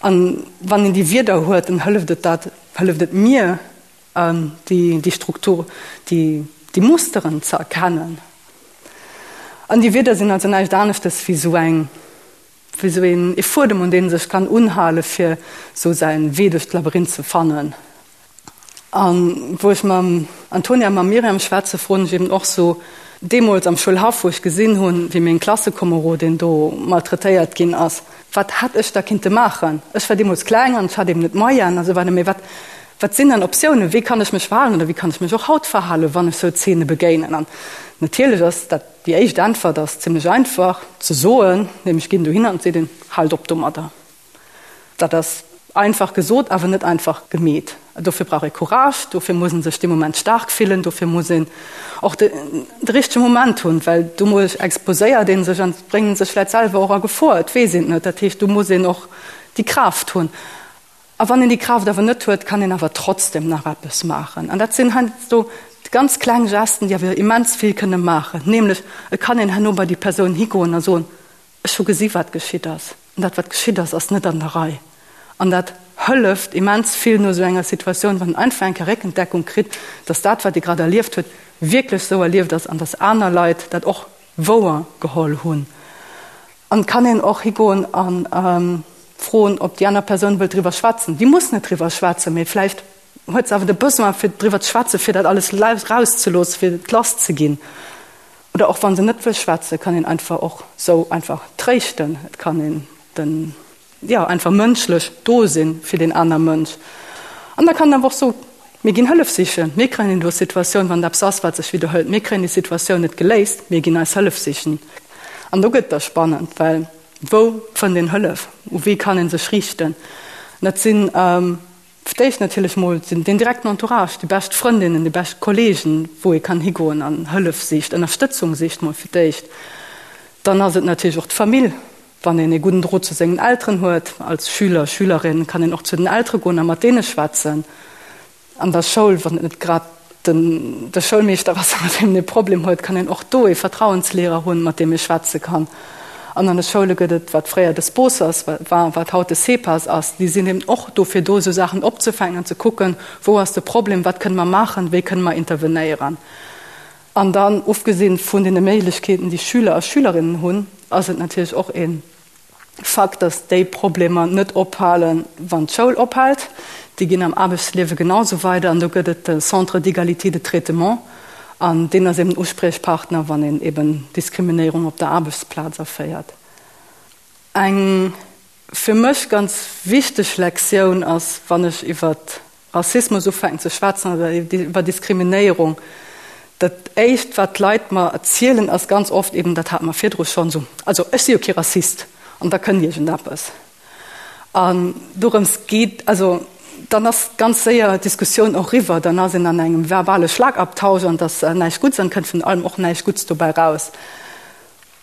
An wann een déi Wierder huet, dann hëlleft et dat, hëlleft et mir, déi, déi Struktur, déi, déi Musteren ze erkennen. An déi Wierder sinn also näischt aneschtes wéi sou eng, wéi sou een ee Fuedem un deen e sech kann unhale fir sou säin Wee duerch d'Labyrinth ze fannen. An wou ech mam Antonia a mam Myriam schwätze froen ech eben och sou deemools am Schoulhaff wou ech gesinn hunn wéi meng Klassekomerodin do maltraitéiert ginn ass, wat hätt ech da kinnte maachen? Ech war deemools kleng an ech hat eben net d'Moyenen a sou weider, mee wat wat sinn dann Optiounen, wéi kann ech mech verhalen oder wéi kann ech mech och haut verhalen, wann ech sou Zeene begéinen? An natierlech ass dat Déi éischt Äntwert ass zimlech einfach ze soen, nämlech ginn dohinner an seet een, Haalt op domadder. Dat ass einfach gesot, awer net einfach gemeet. Dofir brauch ee Courage, dofir muss ee sech dee Moment staark fillen, dofir muss een och de richtege Moment hunn, well domadder exposéiert ee sech an bréngt sech vläicht selwer och a Gefor, et weess een et net. Dat heescht, do muss een och déi Kraaft hunn. A wann een déi Kraaft awer net huet, kann een awer trotzdem nach eppes maachen. An dat sinn heiansdo ganz kleng Gesten, déi awer immens vill kënne maachen. Nämlech, et kann een herno bei déi Persoun higoen a soen, Ech hu gesi wat geschitt ass, an dat wat geschitt ass, ass net an der Rei. An dat hëlleft immens vill no esou enger Situatioun, wann een einfach eng Kéier Réckendeckung kritt, dass dat wat ee grad erlieft huet, wierklech esou erlieft ass an dass aner Leit dat och wouer geholl hunn. An et kann een och higoen a froen, ob déi aner Persoun wëllt driwwer schwätzen. Déi muss net driwwer schwätzen, mee vläicht huet se awer de Besoin fir driwwer ze schwätzen, fir dat alles rauszeloossen, fir et lass ze ginn. Oder och wa se net wëll schwätzen, kann een einfach och sou einfach tréischten. Et kann een den, jo, einfach mënschlech do sinn fir deen aner Mënsch. An da kann een awer och soen, mir ginn Hëllef sichen, mir kréien elo Situatioun, wann et eppes ass, wat sech widderhëlt, mir kréien déi Situatioun net geléist, mir ginn eis Hëllef sichen. An do gëtt et da spannend, well wou fënnt een Hëllef, u wie kann ee sech riichten? Dat sinn Fir d'éischt natierlech mol den direkten Entourage, déi bescht Frëndinnen, déi bescht Kollegen, wou ee kann higoen an Hëllef sicht, Ënnerstëtzung sicht mol fir d'éischt. Dann ass et natierlech och d'Famill, wann een ee gudden Drot zu sengen Elteren huet. Als Schüler, Schülerin kann een och zu den Eltere goen a mat deene schwätzen. An der Schoul, wann et net grad den de Schoulmeeschter ass, mat deem een e Problem huet, kann een och do ee Vertrauenslehrer hunn, mat deem ee schwätze kann. An an de Schoule gëtt et, wat fréier de Sponsors war, wat haut de CEPAS ass, déi sinn eben och dofir do, esou Saachen opzefänken an ze kucken, wou ass de Problem, wat kënne mer maachen, wéi kënne mer intervenéieren. An dann, ofgesinn vun deene Méiglechkeeten, déi Schüler a Schülerinnen hunn, ass et natierlech och ee Fakt, dass déi Problemer net ophalen, wann d'Schoul ophält. Déi ginn am Aarbechtsliewe genau sou weider. An do gëtt et de Centre d'égalité de traitement an deen ass eben den Uspriechpartner, wann een eben Diskriminéierung op der Aarbechtsplaz erféiert. Eng fir mech ganz wichteg Lektioun ass, wann ech iwwer Rassismus ufänken ze schwätzen oder iwwer Diskriminéierung, dat éischt wat d'Leit mer erzielen ass ganz oft eben, dat hate mer virdru schonn, esou, also ech si jo kee Rassist an da kënnt iergendeppes. An dorëms geet, also dann ass ganz séier d'Diskussioun och eriwwer, dann ass een an engem verbale Schlagabtausch an et ass näischt Gutts an et kënnt vun allem och näischt Gutts dobäi raus.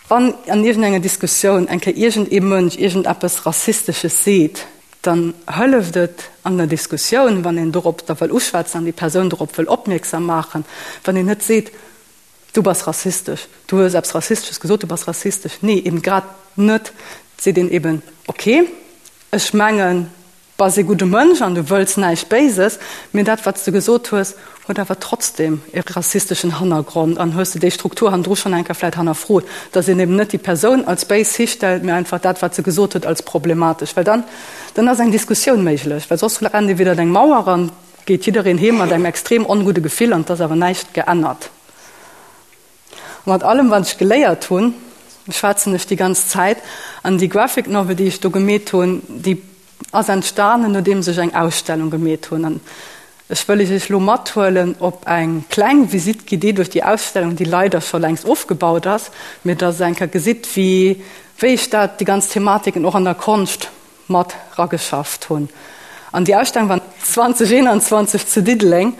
Wann an iergendenger Diskussioun eng Kéier iergendee Mënsch iergendeppes Rassistesches seet, dann hëlleft et an der Diskussioun, wann een dorop da wëll uschwätzen an déi Persoun dorop wëll opmierksam maachen, wann een net seet, Du bass rassistesch, du hues eppes Rassistesches gesot, du bass rassistesch. Nee, eben grad net. Et seet een eben, Okay, ech mengen, Bass ee gudde Mënsch an du wëlls näischt Béises, mee dat wat s de gesot hues, huet awer trotzdem e rassisteschen Hannergrond an hues de déi Struktur hannendru schonn eng Kéier vläit hannerfrot, dass een eben net déi Persoun als béis histellt, mee einfach dat wat se gesot huet als problematesch, well dann dann ass eng Diskussioun méiglech, well soss rennt ee widder eng Mauer an geet jiddereen heem mat engem extrem ongudde Gefill an et ass awer näischt geännert. A mat allem wat ech geléiert hunn, schwätzen ech déi ganz Zäit. An déi Graphic Novel, déi ech do gemeet hunn, déi ass entstanen, nodeems ech eng Ausstellung gemeet hunn. An ech wëll iech elo mathuelen op eng kleng Visite guidée duerch déi Ausstellung, déi leider scho längst ofgebaut ass, mee dass der eng Kéier gesitt, wéi wéi ech dat, déi ganz Thematiken och an der Konscht mat rageschafft hunn. An déi Ausstellung war 2021 zu Diddeleng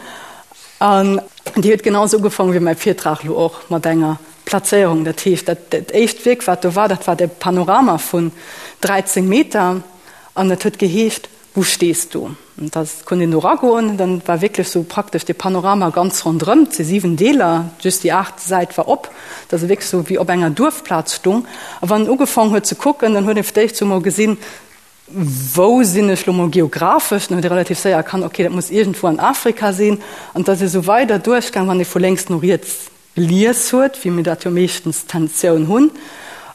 an déi huet genau esou ugefaangen wéi mäi Virtrag elo och, mat enger Plazéierung. Dat heescht, dat dat éischt Wierk, wat do war, dat war de Panorama vun 13 Meter an et huet geheescht Wo stehst du? An da konnt een do ragoen, dann war wierklech sou praktesch de Panorama ganz ronderëm, et si 7 Deeler, just déi aacht Säit war op, dass e wierklech sou wéi op enger Duerfplaz stung. A wann en ugefaang huet ze kucken, dann huet een fir d'éischt sou mol gesinn, wou sinn ech lo mol geographesch, dann huet ee relativ séier erkannt, okay, dat muss iergendwou an Afrika sinn. An et ass ee sou weider duerchgaang, wann ee vu lénks no riets gelies huet, wéi mir dat jo meeschtens d'Tentioun hunn.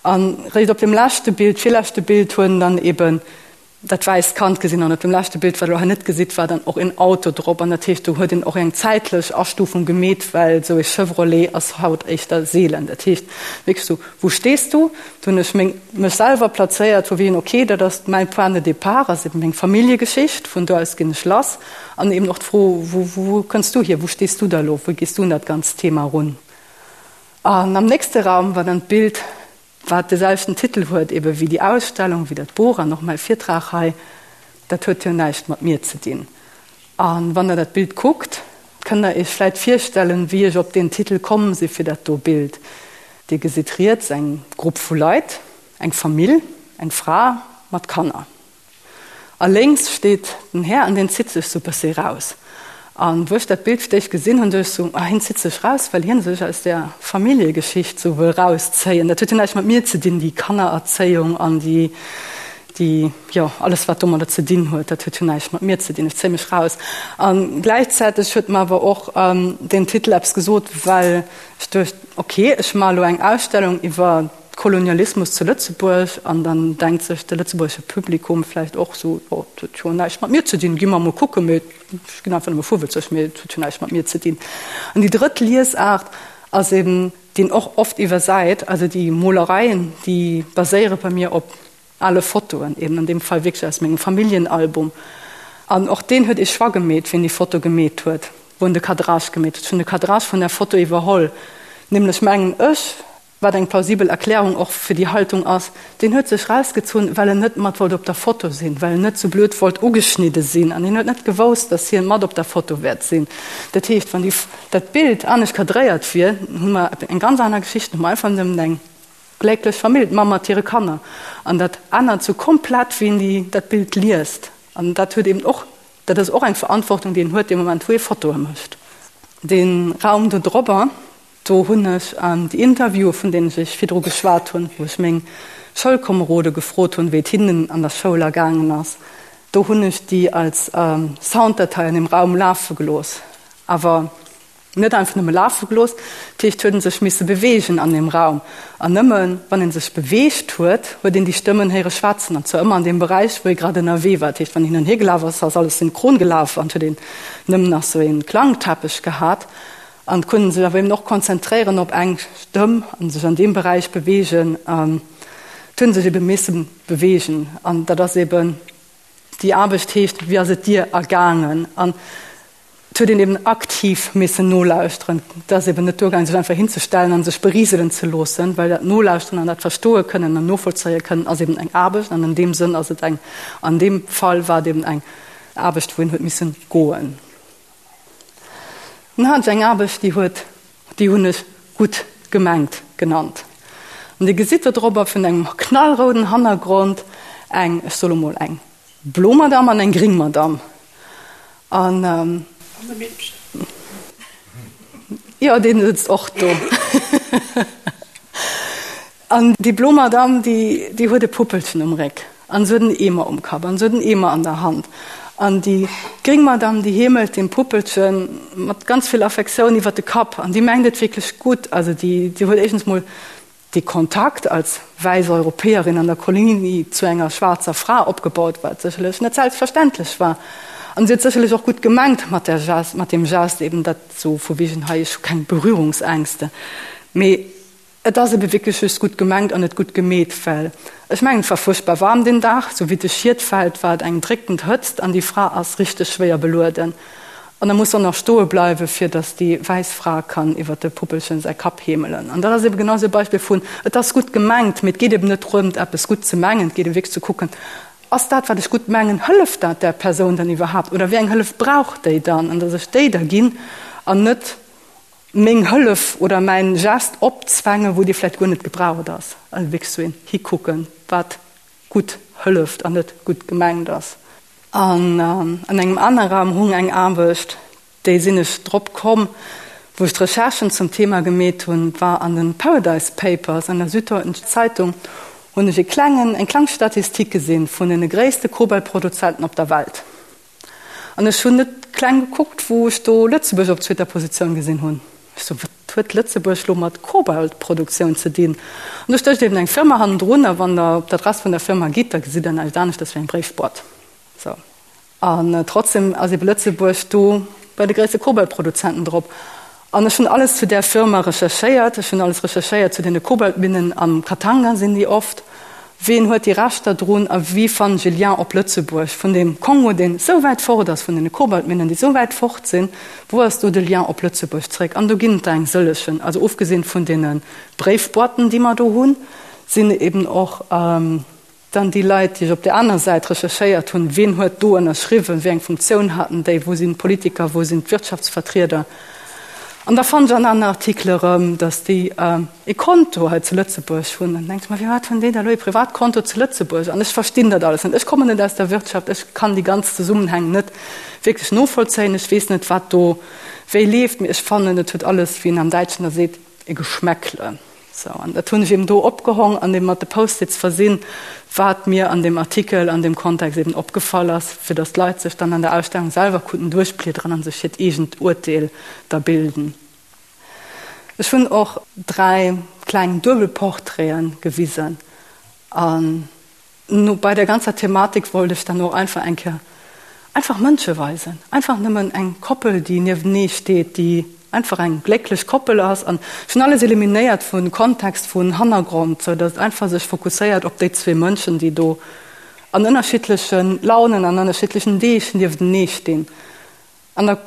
An réischt op dem leschte Bild, virleschte Bild, huet en dann eben dat wäisst Kand gesinn an op dem leschte Bild, wat der elo hei net gesitt, war dann och een Auto drop an dat heescht, do huet een och eng zäitlech Astufung gemeet, well esou ee Chevrolet ass haut éischter seelen. Dat heescht wierklech esou, Wo stehst du? Do hunn ech meng, mech selwer plazéiert, vu wéi ok, dat ass mäin Point de départ, ass eben meng Familljegeschicht, vun do aus ginn ech lass an eben och d'Fro, Wo, wou kënns du hier, wou stees du da elo, wéi gees du un dat ganzt Thema erun? An am nächste Raum war dann d'Bild, wat de selwechten Titel huet ebe wéi déi Ausstellung, wéi dat Buch an och mäi Virtrag hei. Dat huet jo näischt mat mir ze dinn. A wann Der dat Bild kuckt, kënnt Der Iech vläit virstellen, wéi ech op deen Titel komm si fir dat do Bild. Dir gesitt riets eng Grupp vu Leit, eng Famill, eng Fra mat Kanner. A lénks steet den Här an deen zitt sech sou bëssi raus. An wou ech dat Bild fir d'éischt gesinn hunn, duecht ech sou, ah hien zitt sech raus, well hien sech aus där Familljegeschicht sou wëll rauszéien. Dat huet jo näischt mat mir ze dinn, déi Kannererzéiung an déi, déi, jo, alles wat domadder ze dinn huet, dat huet jo näischt mat mir ze dinn, ech zéie mech raus. A gläichzäiteg huet mer awer och deen Titel eppes gesot, well ech duecht, ok, ech maache lo eng Ausstellung iwwer Kolonialismus zu Lëtzebuerg an dann denkt sech de lëtzebuergesche Publikum vläicht och sou, jo, dat huet jo näischt mat mir ze dinn, gi mer emol kucken, mee ech ginn einfach nëmme fuwelzeg, mee et huet jo näischt mat mir ze dinn. An déi drëtt Liesaart ass eben, déi een och oft iwwersäit, also déi Molereien, déi baséiere bei mir op Ale Fotoen, eben an deem Fall wierklech aus mengem Familljenalbum. An och deen huet ee Choix gemeet, wien déi Foto gemeet huet, wou en de Cadrage gemeet huet. Ech hunn de Cadrage vun där Foto iwwerholl, nämlech mengen ech, Wat eng plausibel Erklärung och fir déi Haltung ass, deen huet sech rausgezunn, well en net mat wollt op der Foto sinn, well en net sou blöd wollt ugeschnidde sinn an hien huet net gewousst, datt hien mat op der Foto wäert sinn. Dat heescht, wann déi dat Bild anescht kadréiert wier, hu mer eng ganz aner Geschicht, hu mer einfach nëmmen eng glécklech Famill, d'Mamm mat hire Kanner. An dat ännert sou komplett, wéi een déi dat Bild liest. An dat huet eben och, dat ass och eng Verantwortung, déi een huet dee Moment, wou ee Fotoe mécht. Dee Raum do drobber, Do hunn ech déi Interviewen, vun deenen ech Iech virdru geschwat hunn, wou ech meng Schoulkomerode gefrot hunn, wéi et hinnen an der Schoul ergaangen ass, do hunn ech déi als Sounddatei an deem Raum lafe gelooss. Awer net einfach nëmme lafe gelooss, dat heescht, huet ee sech misse beweegen an deem Raum. An nëmme wann ee sech beweegt huet, huet een déi Stëmmen héiere schwätzen, an zwar ëmmer an deem Beräich, wou ee grad ënnerwee war. Dat heescht, wann een hin an hier gelaf ass, ass alles synchron gelaf an et huet een nëmmen nach sou ee Klangteppech gehat. An d'Kunden sech awer eben och konzentréieren op eng Stëmm an sech an deem Beräich beweegen. An d'hunn sech ebe misse beweegen. An dat ass eben, déi Aarbecht heescht, Wéi ass et dir ergaangen? An et huet een eben aktiv missen nolauschteren. Et ass eben net duergaangen, sech einfach hinzestellen an sech beriselen ze loossen, well dat Nolauschteren an dat Verstoe kënnen an novollzéie kënnen ass eben eng Aarbecht. An an deem Sënn ass et eng, an deem Fall war et eben eng Aarbecht, wou een huet missen goen. Dann hat ech eng Aarbecht, déi huet, déi hunn ech gutt gemengt genannt. An Dir gesitt do drop vun engem knallrouden Hannergrond eng, ech soe lo mol eng blo Madamm an eng gring Madamm. An. An e Meedchen. Jo, deen sëtzt och do. An déi blo Madamm, déi, déi huet e Puppelchen um Réck an se huet en Eemer um Kapp an se huet en Eemer an der Hand. An déi gréng Madamm, déi heemelt deem Puppelche mat ganz vill Affektioun iwwer de Kapp an déi mengt et wierklech gutt. Also déi, déi huet éischtens mol dee Kontakt als wäiss Europäerin an der Kolonie zu enger schwaarzer Fra opgebaut, wat sécherlech net selbstverständlech war. An si huet sécherlech och gutt gemengt mat där Gest, mat deem Gest eben, dat sou vu wegen hei, ech hu keng Berührungsängste. Mee Et ass ebe wierklech just gutt gemengt an net gutt gemeet, well ech mengen, et war fuerchtbar waarm deen Dag, sou wéi de Schiet fält, war et eng dréckend Hëtzt an déi Fra ass richteg schwéier belueden an da muss se och nach stoe bleiwe fir datt déi wäiss Fra kann iwwer de Puppelchen säi Kapp heemelen. An dat ass ebe genau sou e Beispill vun, et ass gutt gemengt, mee et geet eben net drëmt eppes gutt ze mengen, et geet ebe wierklech ze kucken, ass dat wat ech gutt mengen, hëlleft dat där Persoun dann iwwerhaapt oder wéi eng Hëllef brauch déi dann an datt ech déi da ginn an net meng Hëllef oder mäin Gest opzwängen, wou dee vläicht guer net gebraucht ass. Also wierklech sou een hikucken, wat gutt hëlleft an net gutt gemengt ass. An an engem anere Raum hung eng Aarbecht, déi sinn ech drop komm, wou ech d'Recherchen zum Thema gemeet hunn, war an den Paradise Papers an der Süddeutschen Zeitung hunn ech e klengen, eng kleng Statistik gesinn vun den gréisste Kobaltproduzenten op der Welt. An ech hunn net kleng gekuckt, wou ech do Lëtzebuerg op zweeter Positioun gesinn hunn. Ech sou, wat huet Lëtzebuerg lo mat Kobaltproduktioun ze dinn? An do stécht eben eng Firma hannendrun, a wann Der op d'Adress vun der Firma gitt, da gesitt Der näischt aneschters wéi eng Bréifboîte. Sou. An trotzdem ass ebe Lëtzebuerg do bei de gréisste Kobaltproduzenten drop. An ech hunn alles zu där Firma recherchéiert. Ech hunn alles recherchéiert zu deene Kobaltminnen am Katanga sinn déi oft. Ween huet déi Rechter drun a wéi fannen ech e Lien op Lëtzebuerg vun deem Kongo, deen esou wäit fort ass, vun deene Kobaltminnen, déi esou wäit fort sinn, wou ass do de Lien op Lëtzebuerg zréck? An do ginn et der eng sëllechen. Also ofgesinn vun deene Bréifboîten, déi mer do hunn, sinn eben och. Dann déi Leit, déi ech op där aner Säit recherchéiert hunn, wien huet do ënnerschriwwen, wéi eng Funktioun haten déi, wou sinn d'Politiker, wou sinn d'Wirtschaftsvertrieder. An da fannen ech an aneren Artikele erëm, datt déi e Konto hei zu Lëtzebuerg hunn. An dann denke ech mer, firwat hunn déi da elo e Privatkonto zu Lëtzebuerg? An ech verstinn dat alles net. Ech kommen net aus der Wirtschaft, ech kann déi ganz Zesummenhäng net wierklech novollzéien. Ech weess net, wat do wéi leeft, mee ech fannen, et huet alles, wéi een am Däitschen da seet, e Geschmäckle. Sou, an dat hunn ech eben do opgehong an eben mat de Post-its versinn, wat mir an deem Artikel an deem Kontext eben opgefall ass, fir datt d'Leit sech dann an der Ausstellung selwer konnten duerchbliederen a sech hiert eegent Urteel da bilden. Ech hunn och 3 kleng Duebelportraiten gewisen an No bei der ganzer Thematik wollt ech dann och einfach eng Kéier einfach Mënsche weisen, einfach nëmmen eng Koppel, déi nieftenee steet, déi einfach eng glécklech Koppel ass. An ech hunn alles eliminéiert vu Kontext, vun Hannergrond, sou datt et einfach sech fokusséiert op déi zwee Mënschen, déi do an ënnerschiddleche Launen, an ënnerschiddlechen Deeg nieftenee stinn. An da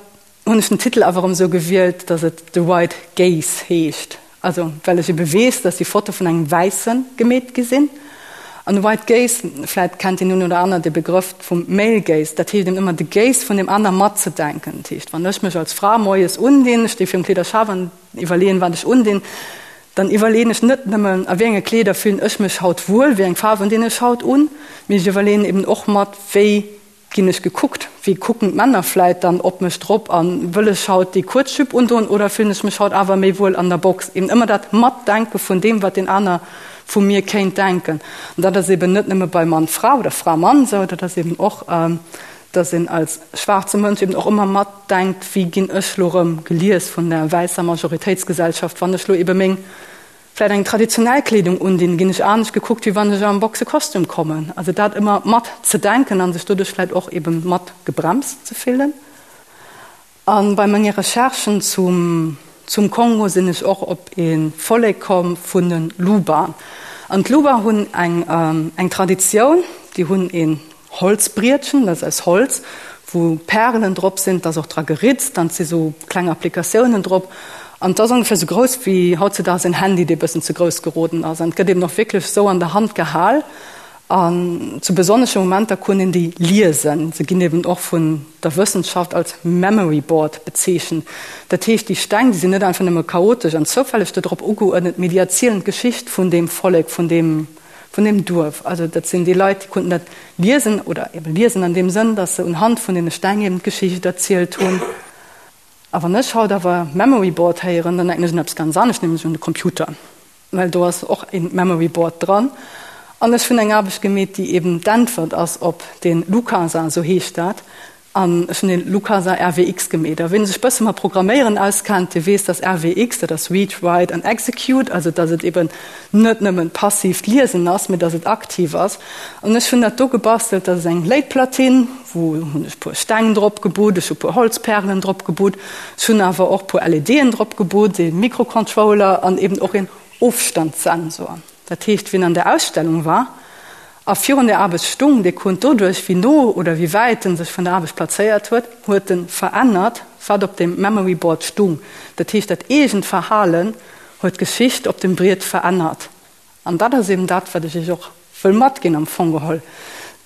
hunn ech den Titel awer erëm esou gewielt, datt et The White Gaze heescht. Also well ech ebe weess, datt déi Foto vun engem Wäisse gemeet gi sinn. An de White Gaze, vläit kennt deen een oder aner de Begrëff vum Male Gaze, dat heescht eben ëmmer de Gaze vun deem aner matzedenken. Dat heescht, wann ech mech als Fra moies undinn, ech sti virum Kleederschaf an iwwerleeën, wat ech undinn, dann iwwerleeën ech net nëmmen, a wéi enge Kleeder fillen ech mech haut wuel, wéi eng Faarwen dinn ech haut un, mee ech iwwerleeën eben och mat, wéi Ginn ech gekuckt? Wéi kucken d'Männer vläit dann op mech drop? A wëll ech haut déi kuerz Jupe undoen oder fillen ech mech haut awer méi wuel an der Box? Eben ëmmer dat Matdenke vun deem, wat deen aner vu mir kéint denken. An dat ass eben net nëmme bei Mann-Fra oder Fra-Mann esou, dat ass eben och, dass een als schwaarze Mënsch eben och ëmmer matdenkt, wéi ginn ech lo rëm gelies vun der wäisser Majoritéitsgesellschaft, wann ech lo ebe meng Vläit eng traditionell Kleedung undinn, ginn ech anescht gekuckt, wéi wann ech am Boxekostüm kommen. Also dat ëmmer mat ze denken an sech doduerch vläit och eben mat gebremst ze fillen. A bei menge Recherchen zum zum Kongo sinn ech och op ee Vollek komm vun de Luba. An d'Luba hunn eng eng Traditioun, déi hunn een Holzbrietchen, dat ass aus Holz, wou Pärelen drop sinn, et ass och dra geritzt an et si sou kleng Applikatiounen drop. An et ass ongeféier sou grouss wéi hautzedaags en Handy, dee bëssen ze grouss geroden ass. An et gëtt eben och wierklech sou an der Hand gehal. An zu besonnesche Momenter kunn een déi liesen. Se ginn eben och vun der Wëssenschaft als Memory Board bezeechent. Dat heescht, déi Steng, déi sinn net einfach nëmme chaotesch an zoufälleg do drop ugeuerdnet, mee déi erzielen d'Geschicht vun deem Vollek, vun deem vun deem Duerf. Also dat sinn déi Leit, déi konnten dat liesen oder eben liesen an deem Sënn, datt se unhand vun deene Steng eben d'Geschicht erzielt hunn. A wann ech haut awer Memory Board héieren, dann denken ech un eppes ganz anescht, nämlech un de Computer, well do ass och e Memory Board dran. An ech hunn eng Aarbecht gemeet, déi eben d'Äntwert ass op dee Lukasa, esou heescht dat, An ech hunn den Lukasa RWX gemeet. A ween sech bësse mat Programméieren auskennt, dee weess, dass RWX, dat ass Read, Write and Execute, also dass et eben net nëmmen passiivt Liesen ass, mee dass et aktiv ass. An ech hunn dat do gebastelt, dat ass eng Léitplatine, wou hunn ech puer Steng drop gebutt, ech hu puer Holzpärelen drop gebutt, ech hunn awer och puer LEDen drop gebutt, ee Mikrocontroller an eben och een Ofstandssensor. Dat heescht, wien an der Ausstellung war a virun der Aarbecht stung, dee konnt doduerch, wéi no oder wéi wäit en sech vun der Aarbecht plazéiert huet, huet en verännert, wat op dem Memory Board stung. Dat heescht, dat eegent Verhalen huet d'Geschicht op dem Briet verännert. An dat ass eben dat, wat ech Iech och wëll matginn am Fong geholl,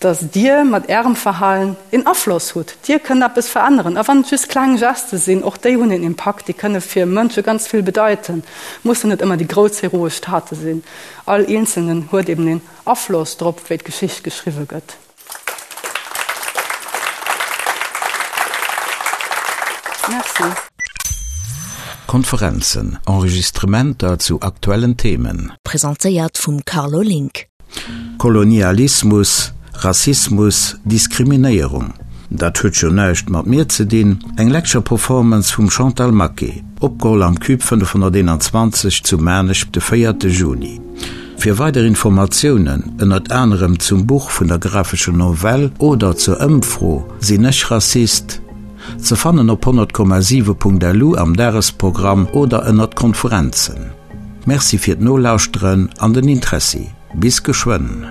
dass Dir mat Ärem Verhalen een Afloss hutt. Dir kënnt eppes veränneren. A wann et just kleng Geste sinn, och déi hunn een Impakt, déi kënne fir Mënsche ganz vill bedeiten. Mussen net ëmmer déi grouss heroesch Tate sinn. All Eenzelnen huet eben een Afloss drop, wéi d'Geschicht geschriwwe gëtt. Merci. Konferenzen, Enregistrementer zu aktuellen Themen. Presentéiert vum Carlo Link. Kolonialismus, Rassismus, Diskriminéierung, dat huet jo näischt mat mir ze dinn, eng Lecture Performance vum Chantal Maquet, opgeholl am Cube 521 zu Maarnech de 4 Juni. Fir weider Informatiounen, ënnert anerem zum Buch vun der graphescher Novell oder zur Ëmfro Sinn ech Rassist? Ze fannen op 100,7.lu am Dagesprogramm oder ënnert Konferenzen. Merci fir d'Nolauschteren an den Interessi. Bis geschwënn.